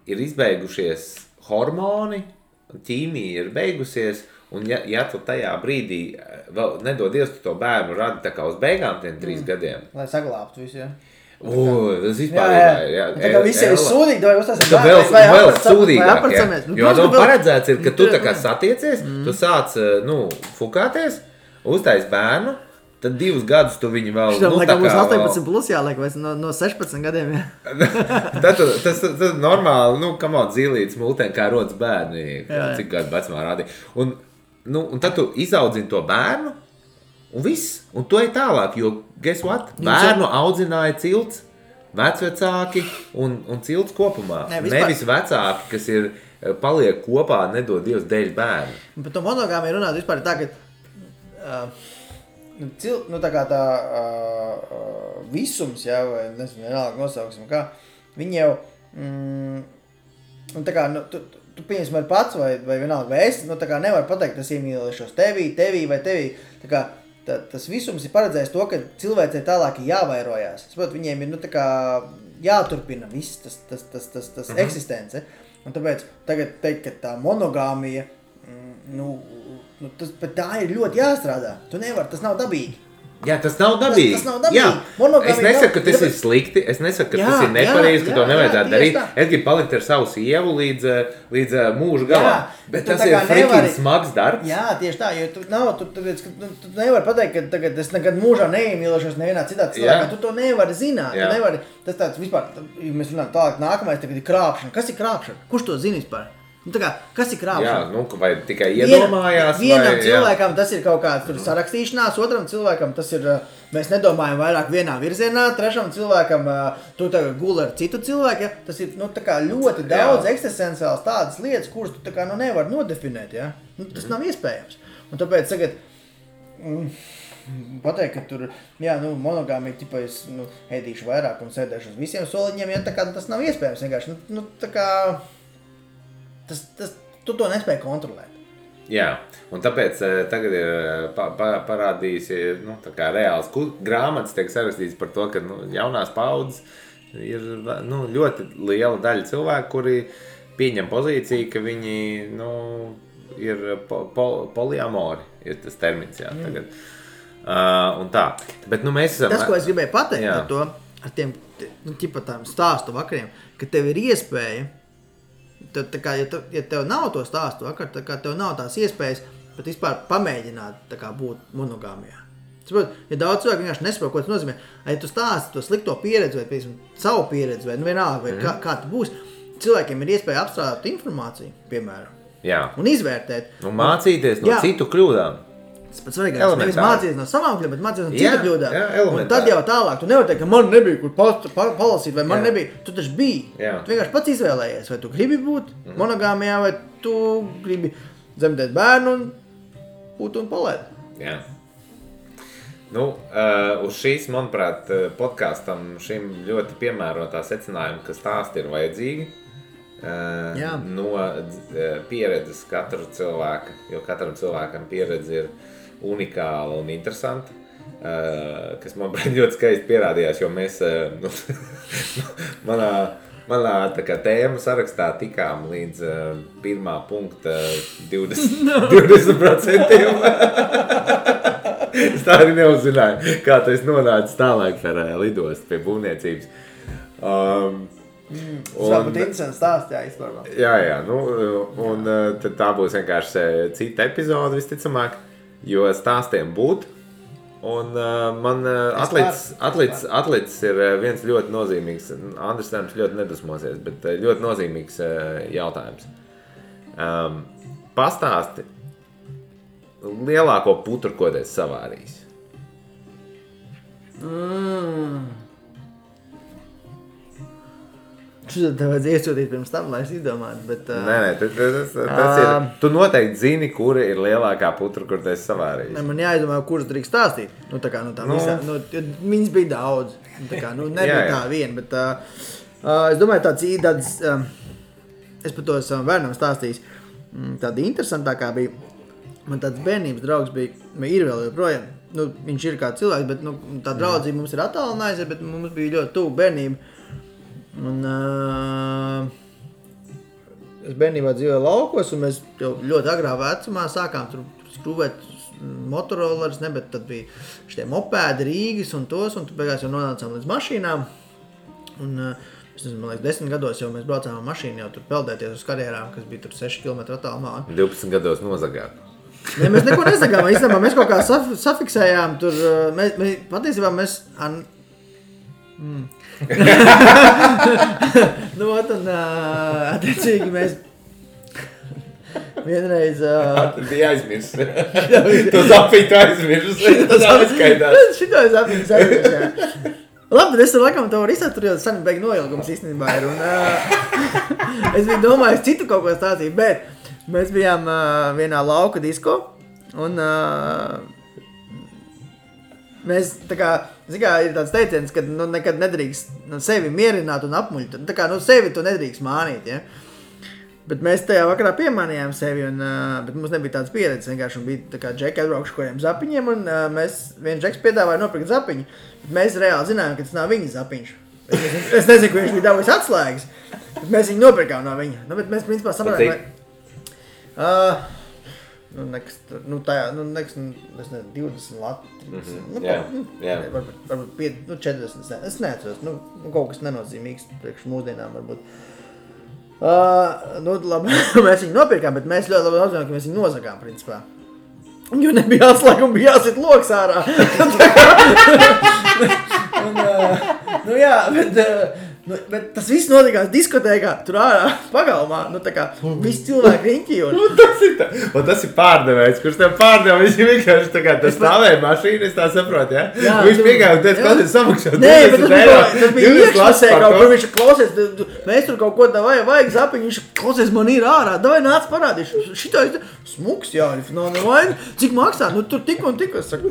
ir izbeigušies hormoni, ķīmija ir beigusies, un ja tu tajā brīdī vēl nedod Dievs, tu to bērnu radi tā kā uz beigām tiem 3 gadiem. Lai saglābtu visu, jā. Tas vispār tā kā visi ir sūdīgi, vai uztāsim vēl sūdīgāk, jo paredzēts ir, ka tu tā kā satiecies, tu sāc, fukāties, uztais bērnu, tad 2 gadus tu viņu vēl, tā kā būs 18 plus jāliek, vai no 16 gadiem, jā. Tas normāli, zīlītes multēm, kā rodas bērni, cik gadu vecumā rādīja. Un tad tu izaudzini to bērnu, un viss, un to ir tālāk, jo, guess what, bērnu audzināja cilts, vecvecāki un cilts kopumā. Nevis vecāki, kas ir paliek kopā, nedod Dievs dēļ bērnu. Par to monogāmiju runāt vispār tā, ka tā kā tā visums, jā, vai nezinu, vienalga nosauksim, kā, viņi jau, tā kā, tu pieņemsim ar pats vai vienalga vai es, tā kā nevar pateikt, tas iemīlēšos tevī vai tevī, tā kā, tas visums ir paredzējis to, ka cilvēcei tālāk ir jāvairojās. Es saprotu, viņiem ir, tā kā jāturpina viss tas eksistence. Un tāpēc tagad teikt, ka tā monogāmija, bet tā ir ļoti jāstrādā. Tu nevar, tas nav dabīgi. Jā, tas nav dabīgi. Jā. Es nesaku, ka tas ir slikti, es nesaku, ka tas ir nepareizi, ka to nevajadzētu darīt. Es gribu palikt ar savu sievu līdz mūža galam. Bet tas ir frikīgi smags darbs. Jā, tieši tā, jo tu nevari pateikt, ka tagad es nekad mūžā neiemīlēšos nevienā citā cilvēkā. Tu to nevari zināt. Tu nevari, tas tāds vispār, ja mēs runājam tālāk nākamais, tagad ir krāpšana. Kas ir krāpšana? Kurš to zina vispār? Nu, tā kā, kas ir krāpšana? Jā, nu, vai tikai iedomājās? Vienam cilvēkam tas ir kaut kāds sarakstīšanās, otram cilvēkam tas ir, mēs nedomājam vairāk vienā virzienā, trešam cilvēkam tu tagad guli ar citu cilvēku, ja? Tas ir, nu, tā kā ļoti daudz eksistenciāls tādas lietas, kuras tu tā kā, nu, nevar nodefinēt, ja? Nu, tas nav iespējams. Un tāpēc tagad pateikt, ka tur, jā, nu, monogāmija, tipa, es, nu, ēdīšu vairāk un sēdēšu uz visiem soliņiem, ja? Tā kā tas nav iespējams vienkārši, nu, tā kā... Tu to nespēji kontrolēt. Jā, un tāpēc tagad ir parādījis, nu, tā kā reāls grāmatas tiek sarakstīts par to, ka, nu, jaunās paudzes ir, nu, ļoti liela daļa cilvēku, kuri pieņem pozīciju, ka viņi, nu, ir poliamori, ir tas termins, jā, tagad. Un tā. Bet, nu, mēs esam... Tas, ko es gribēju pateikt ar to, ar tiem, nu, ķipa tām stāstu vakariem, ka tev ir iespēja tā kā, ja tev nav to stāstu vakar, tā kā tev nav tās iespējas pat vispār pamēģināt tā kā būt monogāmijā. Saprot, ja daudz cilvēku vienkārši nesaprot, ko tas nozīmē, ja tu stāsti to slikto pieredzi vai, piemēram, savu pieredzi vai, nu vienalga, vai kā tu būsi, cilvēkiem ir iespēja apstrādāt informāciju, piemēram, un izvērtēt. Un mācīties no citu kļūdām. Tas pats svarīgākais, nevis mācīties no savām kļūdām, bet mācīties no citu kļūdām. Un tad jau tālāk, tu nevari teikt, ka man nebija, kur palasīt, vai man nebija. Tu taču biji. Tu vienkārši pats izvēlējies, vai tu gribi būt monogāmijā, vai tu gribi dzemdēt bērnu un būt un palaid. Jā. Nu, uz šīs, manuprāt, podkastam šim ļoti piemērotā secinājuma, ka stāsti ir vajadzīgi. No pieredzes katra cilvēka, jo katram cilvēkam pieredze ir unikāla un interesanta, kas man ļoti skaisti pierādījās, jo mēs manā tā kā tēma sarakstā tikām līdz pirmā punkta 20%. Es tā arī neuzzināju, kā tas nonāca tālāk par lidostu pie būvniecības. Tas vēl būtu interesants stāsts, jā, izpārvā. Jā, nu, un tad tā būs vienkārši cita epizode visticamāk, jo stāstiem būt. Un man atlicis ir viens ļoti nozīmīgs, Andris Tēms ļoti nedusmosies, bet ļoti nozīmīgs jautājums. Pastāsti lielāko putru, ko tu esi savārījis. Šodien tev vajadzēja iesūtīt pirms tam, lai es izdomātu, bet... Nē, tas ir... Tu noteikti zini, kura ir lielākā putra, kur tu esi savārījis. Ne, man jāizdomā, kuras drīkst stāstīt. Nu, tā kā, visā... Nu, viņas bija daudz. Tā kā, nu, nebija tā viena, bet... es domāju, tāds... es par to esmu bērnam stāstījis. Tāda interesantākā bija... Man tāds bērnības draugs bija... Ir vēl joprojām. Nu, viņš ir kā cilvēks, bet, nu, tā draudzība mums ir attālinājusies, bet mums bija ļoti tuvu bērnība. Un es bērnībā dzīvoju laukos, un mēs jau ļoti agrā vecumā sākām tur skrūvēt motorollerus, ne, bet tad bija šitie mopēdi, Rīgas un tos, un tu beigās jau nonācām līdz mašīnām. Un, es nezinu, man liekas, 10 gados jau mēs braucām ar mašīnu jau tur peldēties uz karjerām, kas bija tur 6 km attālumā. 12 gados nozagāt. Ne, mēs neko nezagām, īstenībā mēs kaut kā safiksējām tur, patiesībā mēs... Nu, un attiecīgi mēs vienreiz... Tad bija aizmirst. Tu zapiņu aizmirst. Tas atskaitās. Šito es aizmirst, jā. Labi, bet es tur laikam to varu izsāt, tur jau sani beig noilgums īstenībā ir. Un es biju domājis citu kaut ko stāstīt, bet mēs bijām vienā lauka disko un... Mēs, tā kā, ir tāds teiciens, ka nu, nekad nedrīkst sevi mierināt un apmuļt. Tā kā, nu, sevi tu nedrīkst mānīt, ja? Bet mēs tajā vakarā piemānījām sevi, un, bet mums nebija tāds pieredzes vienkārši, un bija tā kā džeki atbraukšu kādiem zapiņiem, un viens džeks piedāvāja nopirkt zapiņu, bet mēs reāli zinājām, ka tas nav viņa zapiņš. Es nezinu, ka viņš bija dabūjis atslēgas, bet mēs viņu nopirkām no viņa. Nu, bet mēs, principā, saprotām, es nezinu, 20 lati, 30, varbūt 40, es neatceros, kaut kas nenozīmīgs priekš mūsdienām varbūt. Labi, mēs viņu nopirkām, bet mēs ļoti labi apzinām, ka mēs viņu nozagām, principā. Jo nebija atslēga un bija jāsit loks ārā. Nu, bet tas viss notikās diskotēkā, tur ārā pagalmā, tā kā visi cilvēki riņķī. Tas ir pārdevējs, kurš tev pārdeva, viņš vienkārši tā kā tas stāvēja mašīna, es tā saprotu, ja? Viņš piegāja un teica, kāds ir samaksāt 20 eiro. Tas bija iekšlasē, kur viņš klausies, mēs tur kaut ko tā vajag zapiņu, viņš klausies, man ir ārā, davai nāc parādīšu. Šitā ir smuks, jā, cik maksā, tur tik un tik, es saku,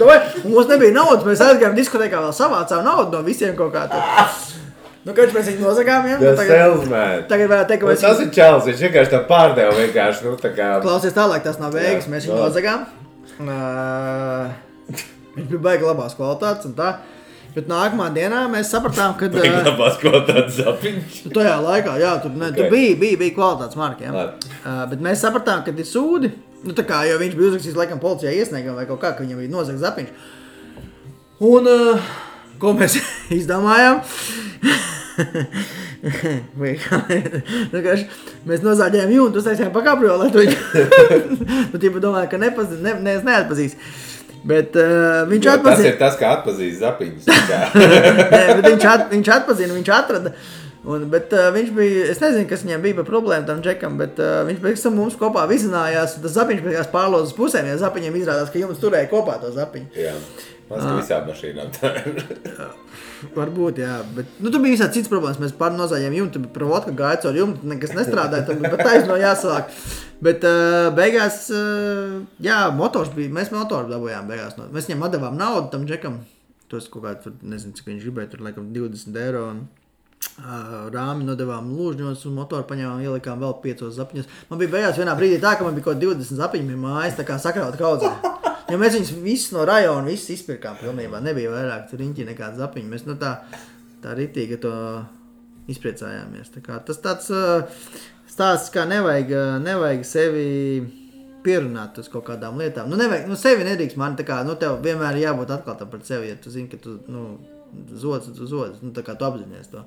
davai, un mums nebija naudas, mēs aizgājām diskotēkā vēl savācām naudu no visiem kaut kā tur. Kāds mēs viņu nozagām, ja? Tagad varētu teikt, ka mēs... Tas ir čels, viņš vienkārši tā pārdeva vienkārši, tā kā... Klausies tālāk, tas nav beigas, mēs viņu nozagām. Viņš bija baigi labās kvalitātes un tā. Bet nākamā dienā mēs sapratām, ka... Baigi labās kvalitātes zapiņš. Tajā laikā, jā, tur bija kvalitātes marki, ja? Bet mēs sapratām, ka ir sūdi. Tā kā, jo viņš bija uzrakstījis laikam policijā iesniegam vai kaut kā, ka viņam bija nozagts zapiņš. Un... Ko mēs izdomājām? Mēs nozāģējām jūntu, uztaisījām pa kabriolētu viņu. Tu tīpa domāju, ka neatpazīs. Bet viņš atpazina. Tas ir tas, kā atpazīs zapiņus. Bet viņš atpazina, viņš atrada. Bet viņš bija, es nezinu, kas viņam bija par problēmu tam džekam, bet viņš pēc tam mums kopā vizinājās. Tas zapiņš pēc pārlozes pusēm, ja zapiņiem izrādās, ka jums turēja kopā to zapiņu. Jā. Mēs ka visām mašīnām tā ir. Varbūt, jā, bet tur bija visādi cits problēmas. Mēs nozājām jumtu, bet provotka gāja caur jumtu, nekas nestrādāja, bet taisno jāsāk. Bet beigās, jā, motors bija, mēs motoru dabūjām beigās. Mēs viņam atdevām naudu tam džekam. Tos kaut kā tur, nezinu, cik viņš gribēja, tur laikam 20 eiro. Rāmi nodevām lūžņos un motoru paņēmām, ielikām vēl 5 zapiņos. Man bija beigās vienā brīdī tā, ka man bija kaut 20 zapiņi mājas, tā kā sakrauta kaudzē. Jo mēs viņus visus no rajona visus izpirkām pilnībā. Nebija vairāk riņķi nekāda zapiņa. Mēs tā ritīgi to izpriecājāmies. Tā kā, tas tāds stāsts, kā nevajag sevi pierunāt uz kaut kādām lietām. Nevajag, sevi nedrīkst mani, tā kā, tev vienmēr jābūt atklātam par sevi, ja tu zini, ka tu, zods, tā kā tu apzinies to.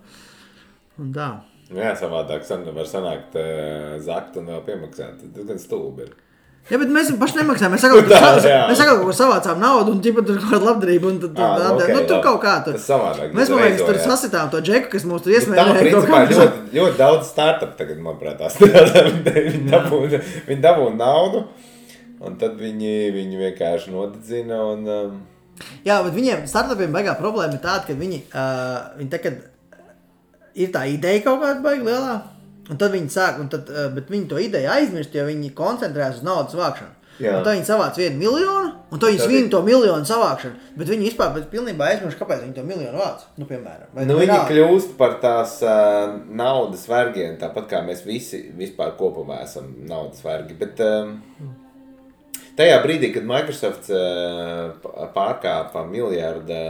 Un tā. Jā, savādāk var sanākt zakt un vēl piemaksāt. Tas gan stulbi ir. Jā, bet mēs paši nemaksājām. Mēs sakām, ka savācām naudu un ķipa tur kaut kādu labdarību un tad tur kaut kā tur. Tas savādāk. Mēs, man liekas, tur sasitām to džeku, kas mums tur iesmērēja. Tā, principā, ļoti daudz startup tagad, manuprāt, viņi dabūna naudu un tad viņi vienkārši nodedzina un... Jā, bet viņiem startupiem baigā problēma ir tāda, ka viņi tagad ir tā ideja kaut kāda baigi lielā. Un tad viņi sāk, bet viņi to ideju aizmirst, jo viņi koncentrējas uz naudas vākšanu. Jā. Un tad viņi savāc 1 miljonu, un tad viņi svin to miljonu savākšanu. Bet viņi vispār pilnībā aizmirst, kāpēc viņi to miljonu vāc, piemēram. Viņi kļūst par tās naudas vergiem, tāpat kā mēs visi vispār kopumā esam naudas vergi. Bet tajā brīdī, kad Microsoft pārkāpa miljarda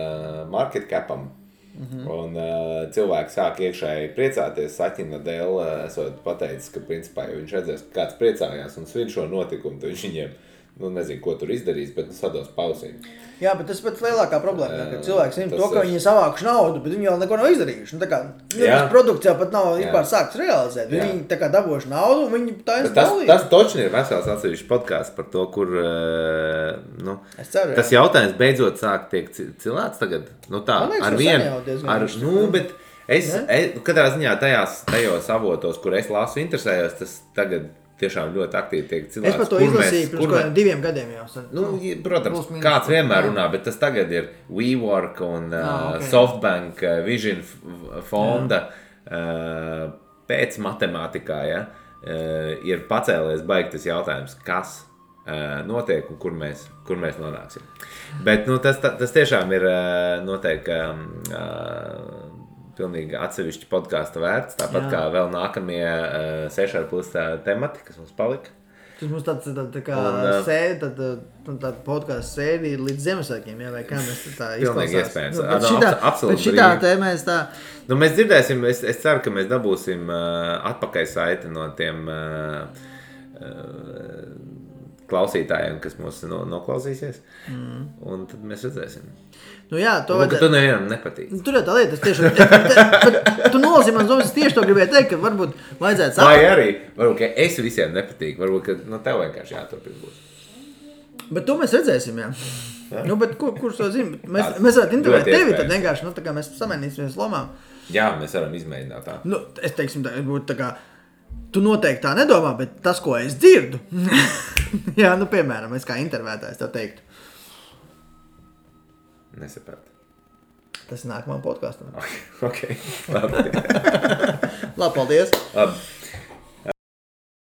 market capam, un cilvēki sāk iekšēji priecāties, Saķina dēļ esot pateicis, ka principā, ja viņš redzēs, ka kāds priecājās un svin šo notikumu, tad viņš viņiem, nezinu, ko tur izdarīs, bet sados pausīm. Jā, bet tas ir pats lielākā problēma, ka cilvēki zina to, ka viņi savākuši naudu, bet viņi vēl neko nav izdarījuši. Tas produkts jau pat nav vispār sākts realizēt. Viņi tā kā dabūjuši naudu un viņi taisa dalīt. Tas točni ir vesels atsevišķs podcasts par to, kur tas jautājums beidzot sāk tiek cilāts tagad. Ar vienu, bet es katrā ziņā tajos avotos, kur es lasu interesējos, tas tagad tiešām ļoti aktīvi tiek cilāts. Es par to izlasīju pirms 2 gadiem jau. Protams, kāds vienmēr runā, bet tas tagad ir WeWork un Softbank Vision fonda pēc matemātikā, ir pacēlies baigi tas jautājums, kas notiek un kur mēs nonāksim. Bet tas tiešām ir noteikti pilnīgi atsevišķi podkāsta vērts, tāpat kā vēl nākamie 6,5 temati, kas mums palika. Tas mums tā kā tāda podkāsta sērija līdz Ziemassvētkiem, vai kā mēs tā izklausās. Pilnīgi iespējams. Bet šitā tēmēs tā... Mēs dzirdēsim, es ceru, ka mēs dabūsim atpakaļ saiti no tiem klausītājiem, kas mūs noklausīsies, un tad mēs redzēsim. Tu nevienam nepatīk. Tur jau tā lieta, tu nolasīji man zomas, es tieši to gribēju teikt, ka varbūt vajadzētu saprast. Vai arī, varbūt, ka es visiem nepatīk, varbūt, ka tev vienkārši jāturpina būs. Bet to mēs redzēsim, jā. Bet kurš to zina? Mēs varētu intervēt tevi, tad vienkārši, tā kā mēs samainīsimies lomām. Jā, mēs varam izmēģināt tā. Nu, es teiksim, tā būtu tā kā, tu noteikti tā nedomā, bet tas, ko es dzirdu, jā, nu, piemēram, es kā intervētājs tev teiktu. Nesaprāt. Tas nākamā podkāstam. Ok, labi. Labi, paldies. Labi.